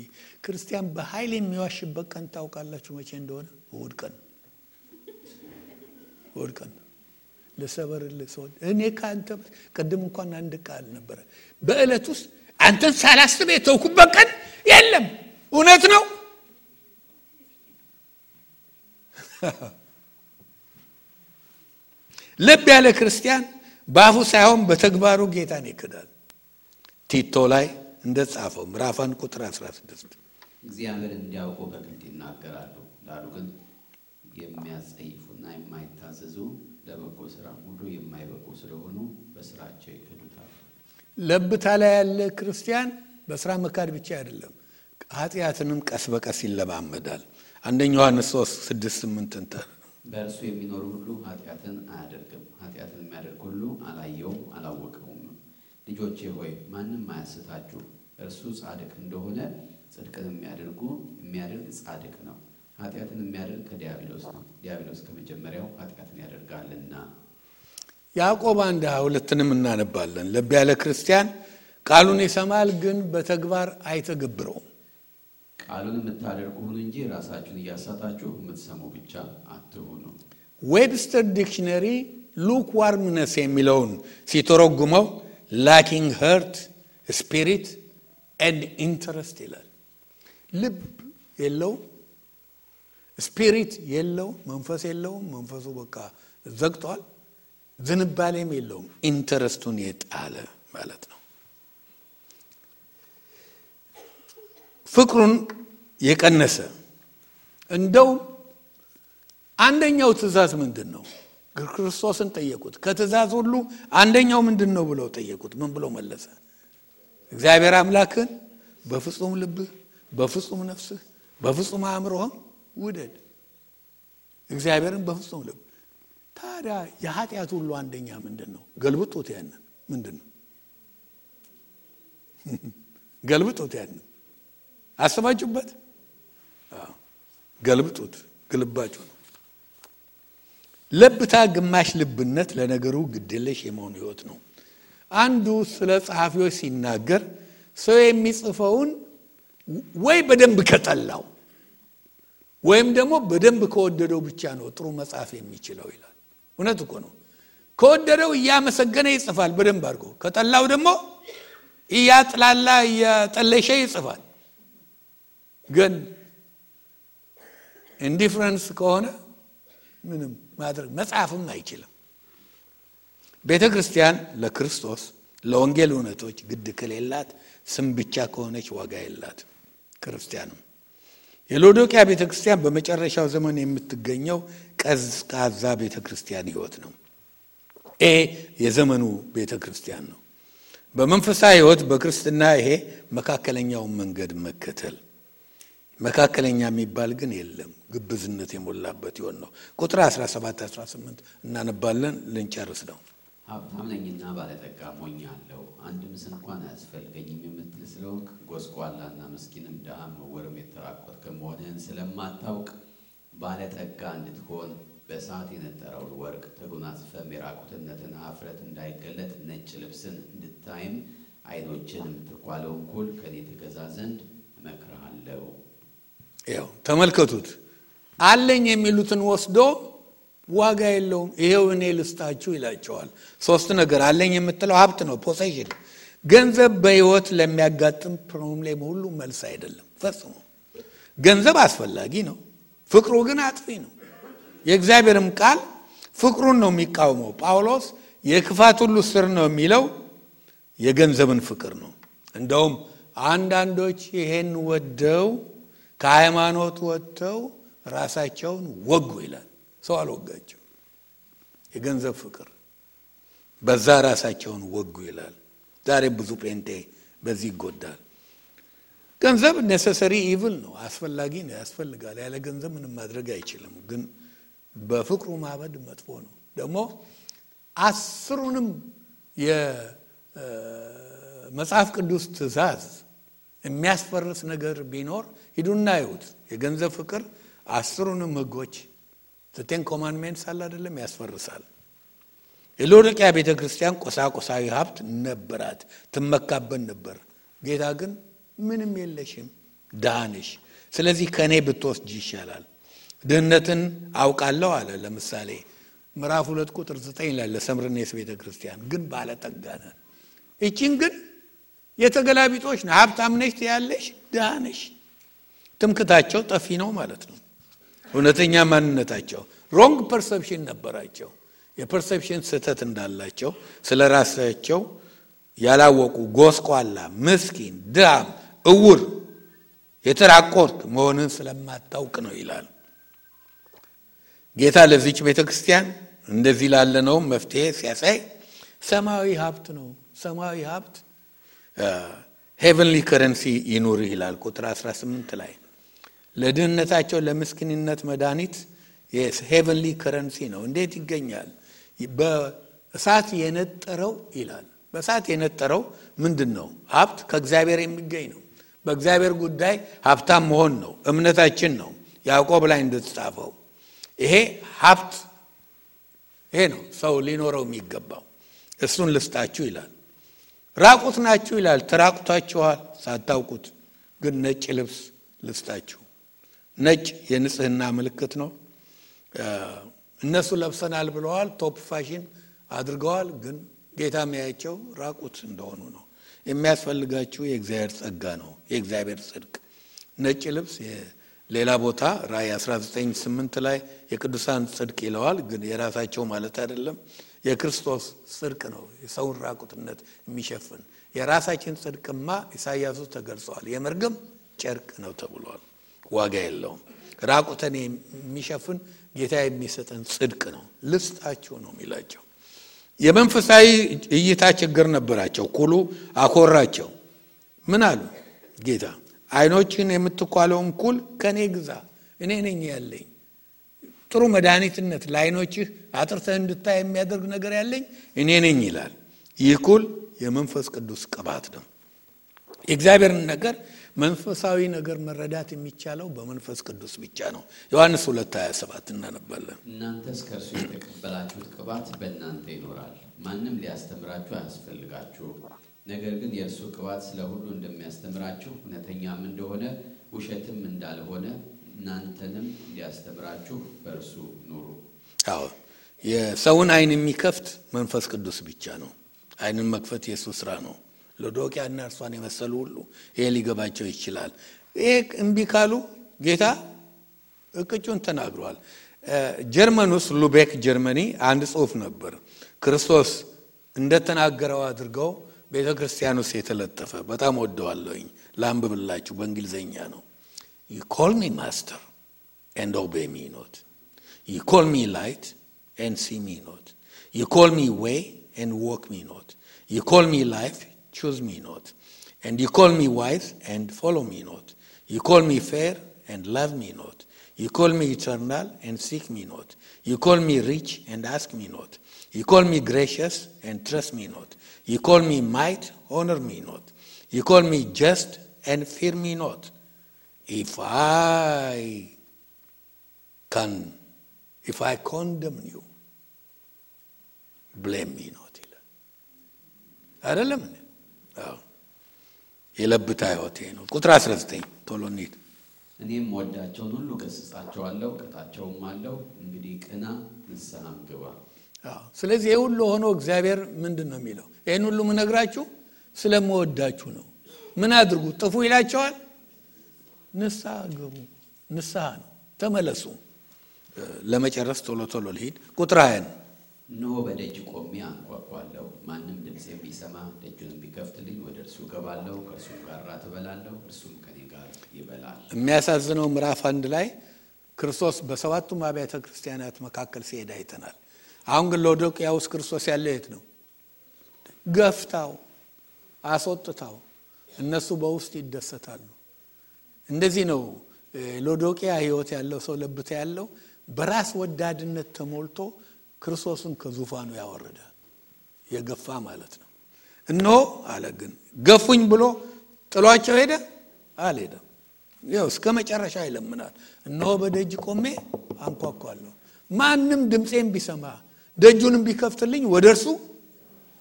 ክርስቲያን በኃይል የሚዋሽበት ቀን ታውቃላችሁ መቼ እንደሆነ? እሑድ ቀን ለሰበርልህ ሰው እኔ ካንተ ቀደም እንኳን አንድ ቃል ነበር በእለት ውስጥ አንተን ሳላስብ የተውኩበት ቀን የለም። እውነት ነው። ልብ ያለ ክርስቲያን በአፉ ሳይሆን በተግባሩ ጌታን ይክዳል። ቲቶ ላይ እንደጻፈው ምዕራፍ 1 ቁጥር 16 እግዚአብሔርን እንዲያውቁ በግልጥ ይናገራሉ፣ ዳሩ ግን የሚያጸይፉና የማይታዘዙ ለበጎ ስራ ሁሉ የማይበቁ ስለሆኑ በስራቸው ይክዱታል። ለብታ ላይ ያለ ክርስቲያን በስራ መካድ ብቻ አይደለም፣ ኃጢአትንም ቀስ በቀስ ይለማመዳል። አንደኛ ዮሐንስ 3:6-8 በእርሱ የሚኖር ሁሉ ኃጢአትን አያደርግም፣ ኃጢአትን የሚያደርግ ሁሉ አላየውም አላወቀውም። ልጆቼ ሆይ ማንም አያስታችሁ፣ እርሱ ጻድቅ እንደሆነ ጽድቅን የሚያደርግ ጻድቅ ነው። ኃጢአትን የሚያደርግ ከዲያብሎስ ነው፣ ዲያብሎስ ከመጀመሪያው ኃጢአትን ያደርጋልና። ያዕቆብ 1:22 እናነባለን። ልብ ያለ ክርስቲያን ቃሉን ይሰማል፣ ግን በተግባር አይተገብረውም። ቃሉን የምታደርጉ ሁኑ እንጂ ራሳችሁን እያሳታችሁ የምትሰሙ ብቻ አትሁኑ። ዌብስተር ዲክሽነሪ ሉክዋርምነስ የሚለውን ሲተረጉመው ላኪንግ ሀርት ስፒሪት ኤንድ ኢንተረስት ይላል። ልብ የለውም፣ ስፒሪት የለው፣ መንፈስ የለውም። መንፈሱ በቃ ዘግቷል። ዝንባሌም የለውም። ኢንተረስቱን የጣለ ማለት ነው። ፍቅሩን የቀነሰ እንደው አንደኛው ትእዛዝ ምንድነው? ክርስቶስን ጠየቁት። ከትእዛዝ ሁሉ አንደኛው ምንድነው ብለው ጠየቁት። ምን ብሎ መለሰ? እግዚአብሔር አምላክን በፍጹም ልብህ፣ በፍጹም ነፍስህ፣ በፍጹም አእምሮህ ውደድ። እግዚአብሔርን በፍጹም ልብ። ታዲያ የኃጢአት ሁሉ አንደኛ ምንድነው? ገልብጡት። ያንን ምንድነው? ገልብጡት። ያንን አስባችሁበት? ገልብጡት። ግልባጩ ነው። ለብታ ግማሽ ልብነት ለነገሩ ግድለሽ የመሆን ህይወት ነው። አንዱ ስለ ጸሐፊዎች ሲናገር ሰው የሚጽፈውን ወይ በደንብ ከጠላው ወይም ደግሞ በደንብ ከወደደው ብቻ ነው ጥሩ መጽሐፍ የሚችለው ይላል። እውነት እኮ ነው። ከወደደው እያመሰገነ ይጽፋል በደንብ አድርጎ፣ ከጠላው ደግሞ እያጥላላ እያጠለሸ ይጽፋል። ግን ኢንዲፈረንስ ከሆነ ምንም ማድረግ መጽሐፍም አይችልም። ቤተክርስቲያን ለክርስቶስ ለወንጌል እውነቶች ግድ ከሌላት ስም ብቻ ከሆነች ዋጋ የላት። ክርስቲያንም የሎዶቅያ ቤተክርስቲያን በመጨረሻው ዘመን የምትገኘው ቀዝቃዛ ቤተክርስቲያን ህይወት ነው። የዘመኑ ቤተክርስቲያን ነው። በመንፈሳዊ ህይወት በክርስትና ይሄ መካከለኛውን መንገድ መከተል። መካከለኛ የሚባል ግን የለም። ግብዝነት የሞላበት ይሆን ነው። ቁጥር 17 18 እናነባለን፣ ልንጨርስ ነው። ሀብታም ነኝና ባለጠጋ ሆኛለሁ፣ አንድም እንኳን አያስፈልገኝም የምትል ስለሆንክ ጎስቋላና ምስኪንም ድሃም ዕውርም የተራቆትክ መሆንህን ስለማታውቅ ባለጠጋ እንድትሆን በእሳት የነጠረውን ወርቅ ተጎናጽፈህ የራቁትነትን ኀፍረት እንዳይገለጥ ነጭ ልብስን እንድታይም ዓይኖችንም ትኳለውን ኩል ከኔ ትገዛ ዘንድ እመክርሃለሁ። ያው ተመልከቱት። አለኝ የሚሉትን ወስዶ ዋጋ የለውም ይሄው እኔ ልስጣችሁ ይላቸዋል። ሶስት ነገር አለኝ የምትለው ሀብት ነው፣ ፖሴሽን። ገንዘብ በህይወት ለሚያጋጥም ፕሮብሌም ሁሉ መልስ አይደለም ፈጽሞ። ገንዘብ አስፈላጊ ነው፣ ፍቅሩ ግን አጥፊ ነው። የእግዚአብሔርም ቃል ፍቅሩን ነው የሚቃወመው። ጳውሎስ የክፋት ሁሉ ስር ነው የሚለው የገንዘብን ፍቅር ነው። እንደውም አንዳንዶች ይሄን ወደው ከሃይማኖት ወጥተው ራሳቸውን ወጉ ይላል። ሰው አልወጋቸው፣ የገንዘብ ፍቅር በዛ ራሳቸውን ወጉ ይላል። ዛሬ ብዙ ጴንጤ በዚህ ይጎዳል። ገንዘብ ኔሰሰሪ ኢቭል ነው፣ አስፈላጊ ነው፣ ያስፈልጋል። ያለ ገንዘብ ምንም ማድረግ አይችልም። ግን በፍቅሩ ማበድ መጥፎ ነው። ደግሞ አስሩንም የመጽሐፍ ቅዱስ ትእዛዝ የሚያስፈርስ ነገር ቢኖር ሂዱና ይሁት። የገንዘብ ፍቅር አስሩንም ህጎች ዘጠኝ ኮማንድሜንትስ አለ አይደለም፣ ያስፈርሳል። የሎዶቅያ ቤተክርስቲያን ቁሳቁሳዊ ሀብት ነበራት፣ ትመካበት ነበር። ጌታ ግን ምንም የለሽም፣ ድሃ ነሽ፣ ስለዚህ ከኔ ብትወስጂ ይሻላል። ድህነትን አውቃለሁ አለ። ለምሳሌ ምዕራፍ 2 ቁጥር 9 ላይ ለሰምርኔስ ቤተክርስቲያን ግን ባለጠጋ ነህ። እቺን ግን የተገላቢጦች ነው። ሀብታም ነሽ ያለሽ፣ ድሃ ነሽ። ትምክታቸው ጠፊ ነው ማለት ነው። እውነተኛ ማንነታቸው ሮንግ ፐርሰፕሽን ነበራቸው። የፐርሰፕሽን ስህተት እንዳላቸው ስለራሳቸው ያላወቁ ጎስቋላ፣ ምስኪን፣ ድሃም፣ ዕውር፣ የተራቆትክ መሆንን ስለማታውቅ ነው ይላል ጌታ። ለዚች ቤተክርስቲያን እንደዚህ ላለ ነው መፍትሄ ሲያሳይ ሰማያዊ ሀብት ነው። ሰማያዊ ሀብት ሄቨንሊ ከረንሲ ይኑር ይላል ቁጥር 18 ላይ። ለድህነታቸው ለምስኪንነት መድኃኒት ሄቨንሊ ከረንሲ ነው። እንዴት ይገኛል? በእሳት የነጠረው ይላል። በእሳት የነጠረው ምንድን ነው? ሀብት ከእግዚአብሔር የሚገኝ ነው። በእግዚአብሔር ጉዳይ ሀብታም መሆን ነው እምነታችን ነው። ያዕቆብ ላይ እንደተጻፈው ይሄ ሀብት ይሄ ነው ሰው ሊኖረው የሚገባው። እሱን ልስጣችሁ ይላል። ራቁት ናችሁ ይላል። ተራቁታችኋል ሳታውቁት፣ ግን ነጭ ልብስ ልስጣችሁ። ነጭ የንጽህና ምልክት ነው። እነሱ ለብሰናል ብለዋል፣ ቶፕ ፋሽን አድርገዋል። ግን ጌታ የሚያያቸው ራቁት እንደሆኑ ነው። የሚያስፈልጋችሁ የእግዚአብሔር ጸጋ ነው፣ የእግዚአብሔር ጽድቅ። ነጭ ልብስ ሌላ ቦታ ራእይ 19:8 ላይ የቅዱሳን ጽድቅ ይለዋል፣ ግን የራሳቸው ማለት አይደለም። የክርስቶስ ጽድቅ ነው የሰውን ራቁትነት የሚሸፍን። የራሳችን ጽድቅማ ኢሳይያስ ተገልጿል፣ የመርገም ጨርቅ ነው ተብሏል። ዋጋ የለውም። ራቁተን የሚሸፍን ጌታ የሚሰጠን ጽድቅ ነው። ልስጣችሁ ነው የሚላቸው። የመንፈሳዊ እይታ ችግር ነበራቸው። ኩሉ አኮራቸው። ምን አሉ? ጌታ አይኖችን የምትኳለውን ኩል ከኔ ግዛ፣ እኔ ነኝ ያለኝ ጥሩ መድኃኒትነት ለአይኖችህ አጥርተህ እንድታይ የሚያደርግ ነገር ያለኝ እኔ ነኝ ይላል። ይህ ኩል የመንፈስ ቅዱስ ቅባት ነው። የእግዚአብሔርን ነገር መንፈሳዊ ነገር መረዳት የሚቻለው በመንፈስ ቅዱስ ብቻ ነው። ዮሐንስ 2:27 እናነባለን። እናንተስ ከእርሱ የተቀበላችሁት ቅባት በእናንተ ይኖራል፣ ማንም ሊያስተምራችሁ አያስፈልጋችሁ። ነገር ግን የእርሱ ቅባት ስለ ሁሉ እንደሚያስተምራችሁ እውነተኛም እንደሆነ ውሸትም እንዳልሆነ እናንተንም ሊያስተምራችሁ በእርሱ ኑሩ። አዎ፣ የሰውን አይን የሚከፍት መንፈስ ቅዱስ ብቻ ነው። አይንን መክፈት የኢየሱስ ስራ ነው። ሎዶቅያና እርሷን የመሰሉ ሁሉ ይሄ ሊገባቸው ይችላል። ይሄ እምቢ ካሉ ጌታ እቅጩን ተናግሯል። ጀርመን ውስጥ ሉቤክ ጀርመኒ አንድ ጽሑፍ ነበር። ክርስቶስ እንደተናገረው አድርገው ቤተክርስቲያን ውስጥ የተለጠፈ በጣም ወደዋለሁኝ። ላንብብላችሁ፣ በእንግሊዘኛ ነው። You call me master and obey me not. You call me light and see me not. You call me way and walk me not. You call me life, choose me not. And you call me wise and follow me not. You call me fair and love me not. You call me eternal and seek me not. You call me rich and ask me not. You call me gracious and trust me not. You call me might, honor me not. You call me just and fear me not. If I condemn you, blame me not. አይደለም እንዴ? አዎ፣ የለብታ ህይወቴ ነው። ቁጥር 19 ቶሎ እንሂድ። እኔም ወዳቸውን ሁሉ ገሥጻቸዋለሁ፣ ቀጣቸውም አለው። እንግዲህ ቅና፣ ንስሐም ግባ። አዎ፣ ስለዚህ ይሄ ሁሉ ሆኖ እግዚአብሔር ምንድን ነው የሚለው? ይሄን ሁሉ ምነግራችሁ ስለምወዳችሁ ነው። ምን አድርጉ? ጥፉ ይላቸዋል? ንስሐ ግቡ። ንስሐ ነው፣ ተመለሱ። ለመጨረስ ቶሎ ቶሎ ልሂድ። ቁጥር 20 እነሆ በደጅ ቆሜ አንኳኳለሁ። ማንም ድምፄን ቢሰማ ደጁንም ቢከፍትልኝ ወደ እርሱ እገባለሁ፣ ከእርሱም ጋር እራት እበላለሁ፣ እርሱም ከኔ ጋር ይበላል። የሚያሳዝነው ምዕራፍ 1 ላይ ክርስቶስ በሰባቱም አብያተ ክርስቲያናት መካከል ሲሄድ አይተናል። አሁን ግን ሎዶቅያ ውስጥ ክርስቶስ ያለው የት ነው? ገፍታው፣ አስወጥታው፣ እነሱ በውስጥ ይደሰታሉ። እንደዚህ ነው ሎዶቅያ ህይወት ያለው ሰው፣ ለብታ ያለው በራስ ወዳድነት ተሞልቶ ክርስቶስን ከዙፋኑ ያወረደ የገፋ ማለት ነው። እነሆ አለ ግን ገፉኝ ብሎ ጥሏቸው ሄደ? አልሄደም። ያው እስከ መጨረሻ ይለምናል። እነሆ በደጅ ቆሜ አንኳኳለሁ፣ ማንም ድምፄን ቢሰማ ደጁንም ቢከፍትልኝ ወደ እርሱ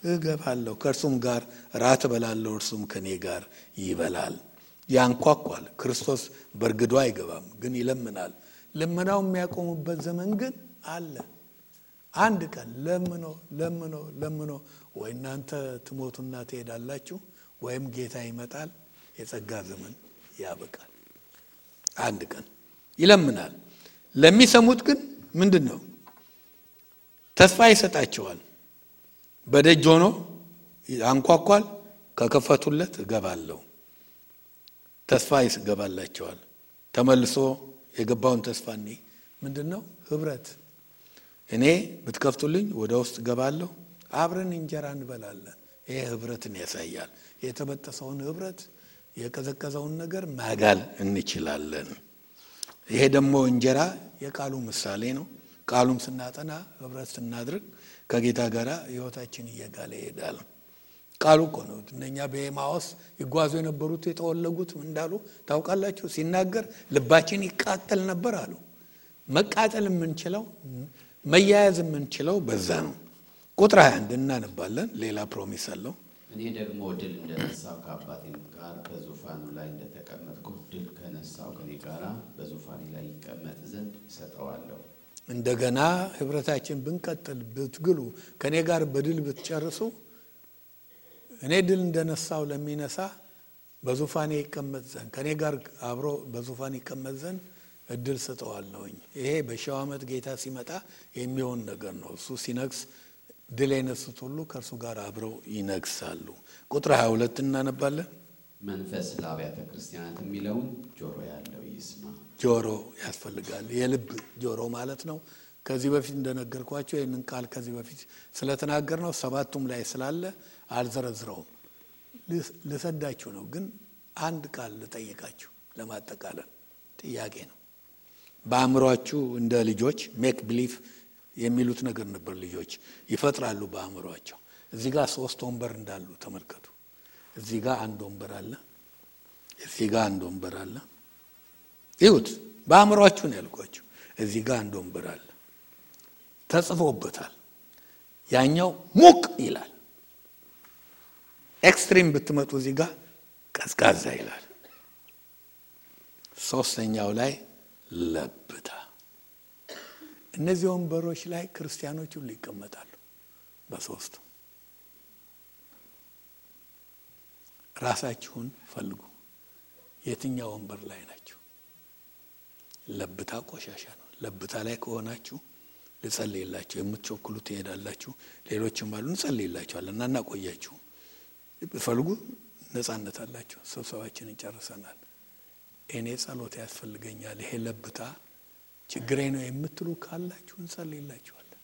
እገባለሁ፣ ከእርሱም ጋር ራት እበላለሁ፣ እርሱም ከኔ ጋር ይበላል። ያንኳኳል። ክርስቶስ በርግዶ አይገባም፣ ግን ይለምናል። ልመናው የሚያቆሙበት ዘመን ግን አለ። አንድ ቀን ለምኖ ወይ እናንተ ትሞቱና ትሄዳላችሁ ወይም ጌታ ይመጣል፣ የጸጋ ዘመን ያበቃል። አንድ ቀን ይለምናል። ለሚሰሙት ግን ምንድነው? ተስፋ ይሰጣቸዋል። በደጅ ሆኖ አንኳኳል፣ ከከፈቱለት እገባለሁ። ተስፋ ይገባላቸዋል። ተመልሶ የገባውን ተስፋ ምንድነው? ህብረት። እኔ ብትከፍቱልኝ ወደ ውስጥ ገባለሁ፣ አብረን እንጀራ እንበላለን። ይሄ ህብረትን ያሳያል። የተበጠሰውን ህብረት፣ የቀዘቀዘውን ነገር ማጋል እንችላለን። ይሄ ደግሞ እንጀራ የቃሉ ምሳሌ ነው። ቃሉም ስናጠና ህብረት ስናድርግ ከጌታ ጋር ህይወታችን እየጋለ ይሄዳል። ቃሉ እኮ ነው። እነኛ በኤማውስ ይጓዙ የነበሩት የተወለጉት ምን እንዳሉ ታውቃላችሁ? ሲናገር ልባችን ይቃጠል ነበር አሉ። መቃጠል የምንችለው መያያዝ የምንችለው በዛ ነው። ቁጥር 21 እናነባለን። ሌላ ፕሮሚስ አለው። እኔ ደግሞ ድል እንደነሳው ከአባቴም ጋር በዙፋኑ ላይ እንደተቀመጥኩ ድል ከነሳው ከኔ ጋር በዙፋኔ ላይ ይቀመጥ ዘንድ እሰጠዋለሁ። እንደገና ህብረታችን ብንቀጥል ብትግሉ ከኔ ጋር በድል ብትጨርሱ እኔ ድል እንደነሳው ለሚነሳ በዙፋኔ ይቀመጥ ዘንድ ከኔ ጋር አብሮ በዙፋኔ ይቀመጥ ዘንድ እድል ሰጠዋለሁኝ። ይሄ በሺው ዓመት ጌታ ሲመጣ የሚሆን ነገር ነው። እሱ ሲነግስ ድል የነሱት ሁሉ ከእርሱ ጋር አብረው ይነግሳሉ። ቁጥር 22 እናነባለን። መንፈስ ለአብያተ ክርስቲያናት የሚለውን ጆሮ ያለው ይስማ። ጆሮ ያስፈልጋል። የልብ ጆሮ ማለት ነው። ከዚህ በፊት እንደነገርኳችሁ ይህንን ቃል ከዚህ በፊት ስለተናገር ነው 7ቱም ላይ ስላለ አልዘረዝረውም። ልሰዳችሁ ነው። ግን አንድ ቃል ልጠይቃችሁ ለማጠቃለል ጥያቄ ነው። በአእምሯችሁ እንደ ልጆች ሜክ ቢሊፍ የሚሉት ነገር ነበር። ልጆች ይፈጥራሉ በአእምሯቸው። እዚህ ጋር 3 ወንበር እንዳሉ ተመልከቱ። እዚህ ጋር አንድ ወንበር አለ፣ እዚህ ጋር አንድ ወንበር አለ። ይሁት በአእምሯችሁ ነው ያልኳችሁ። እዚህ ጋር አንድ ወንበር አለ፣ ተጽፎበታል። ያኛው ሙቅ ይላል። ኤክስትሪም ብትመጡ እዚህ ጋር ቀዝቃዛ ይላል። ሶስተኛው ላይ ለብታ። እነዚህ ወንበሮች ላይ ክርስቲያኖች ሁሉ ይቀመጣሉ። በሶስቱ ራሳችሁን ፈልጉ። የትኛው ወንበር ላይ ናችሁ? ለብታ ቆሻሻ ነው። ለብታ ላይ ከሆናችሁ ልጸልይላችሁ። የምትቸኩሉ ትሄዳላችሁ። ሌሎችም አሉ እንጸልይላችኋለን እና እናቆያችሁ። ፈልጉ፣ ነፃነት አላችሁ። ስብሰባችንን ጨርሰናል። እኔ ጸሎት ያስፈልገኛል፣ ይሄ ለብታ ችግሬ ነው የምትሉ ካላችሁ እንጸልይላችኋለን።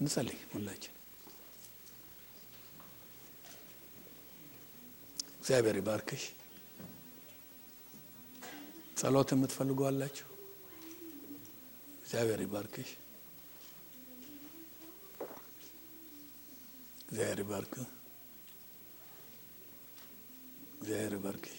እንጸልይ ሁላችን። እግዚአብሔር ይባርክሽ። ጸሎት የምትፈልጉ አላችሁ? እግዚአብሔር ይባርክሽ። እግዚአብሔር ይባርክ። እግዚአብሔር ይባርክሽ።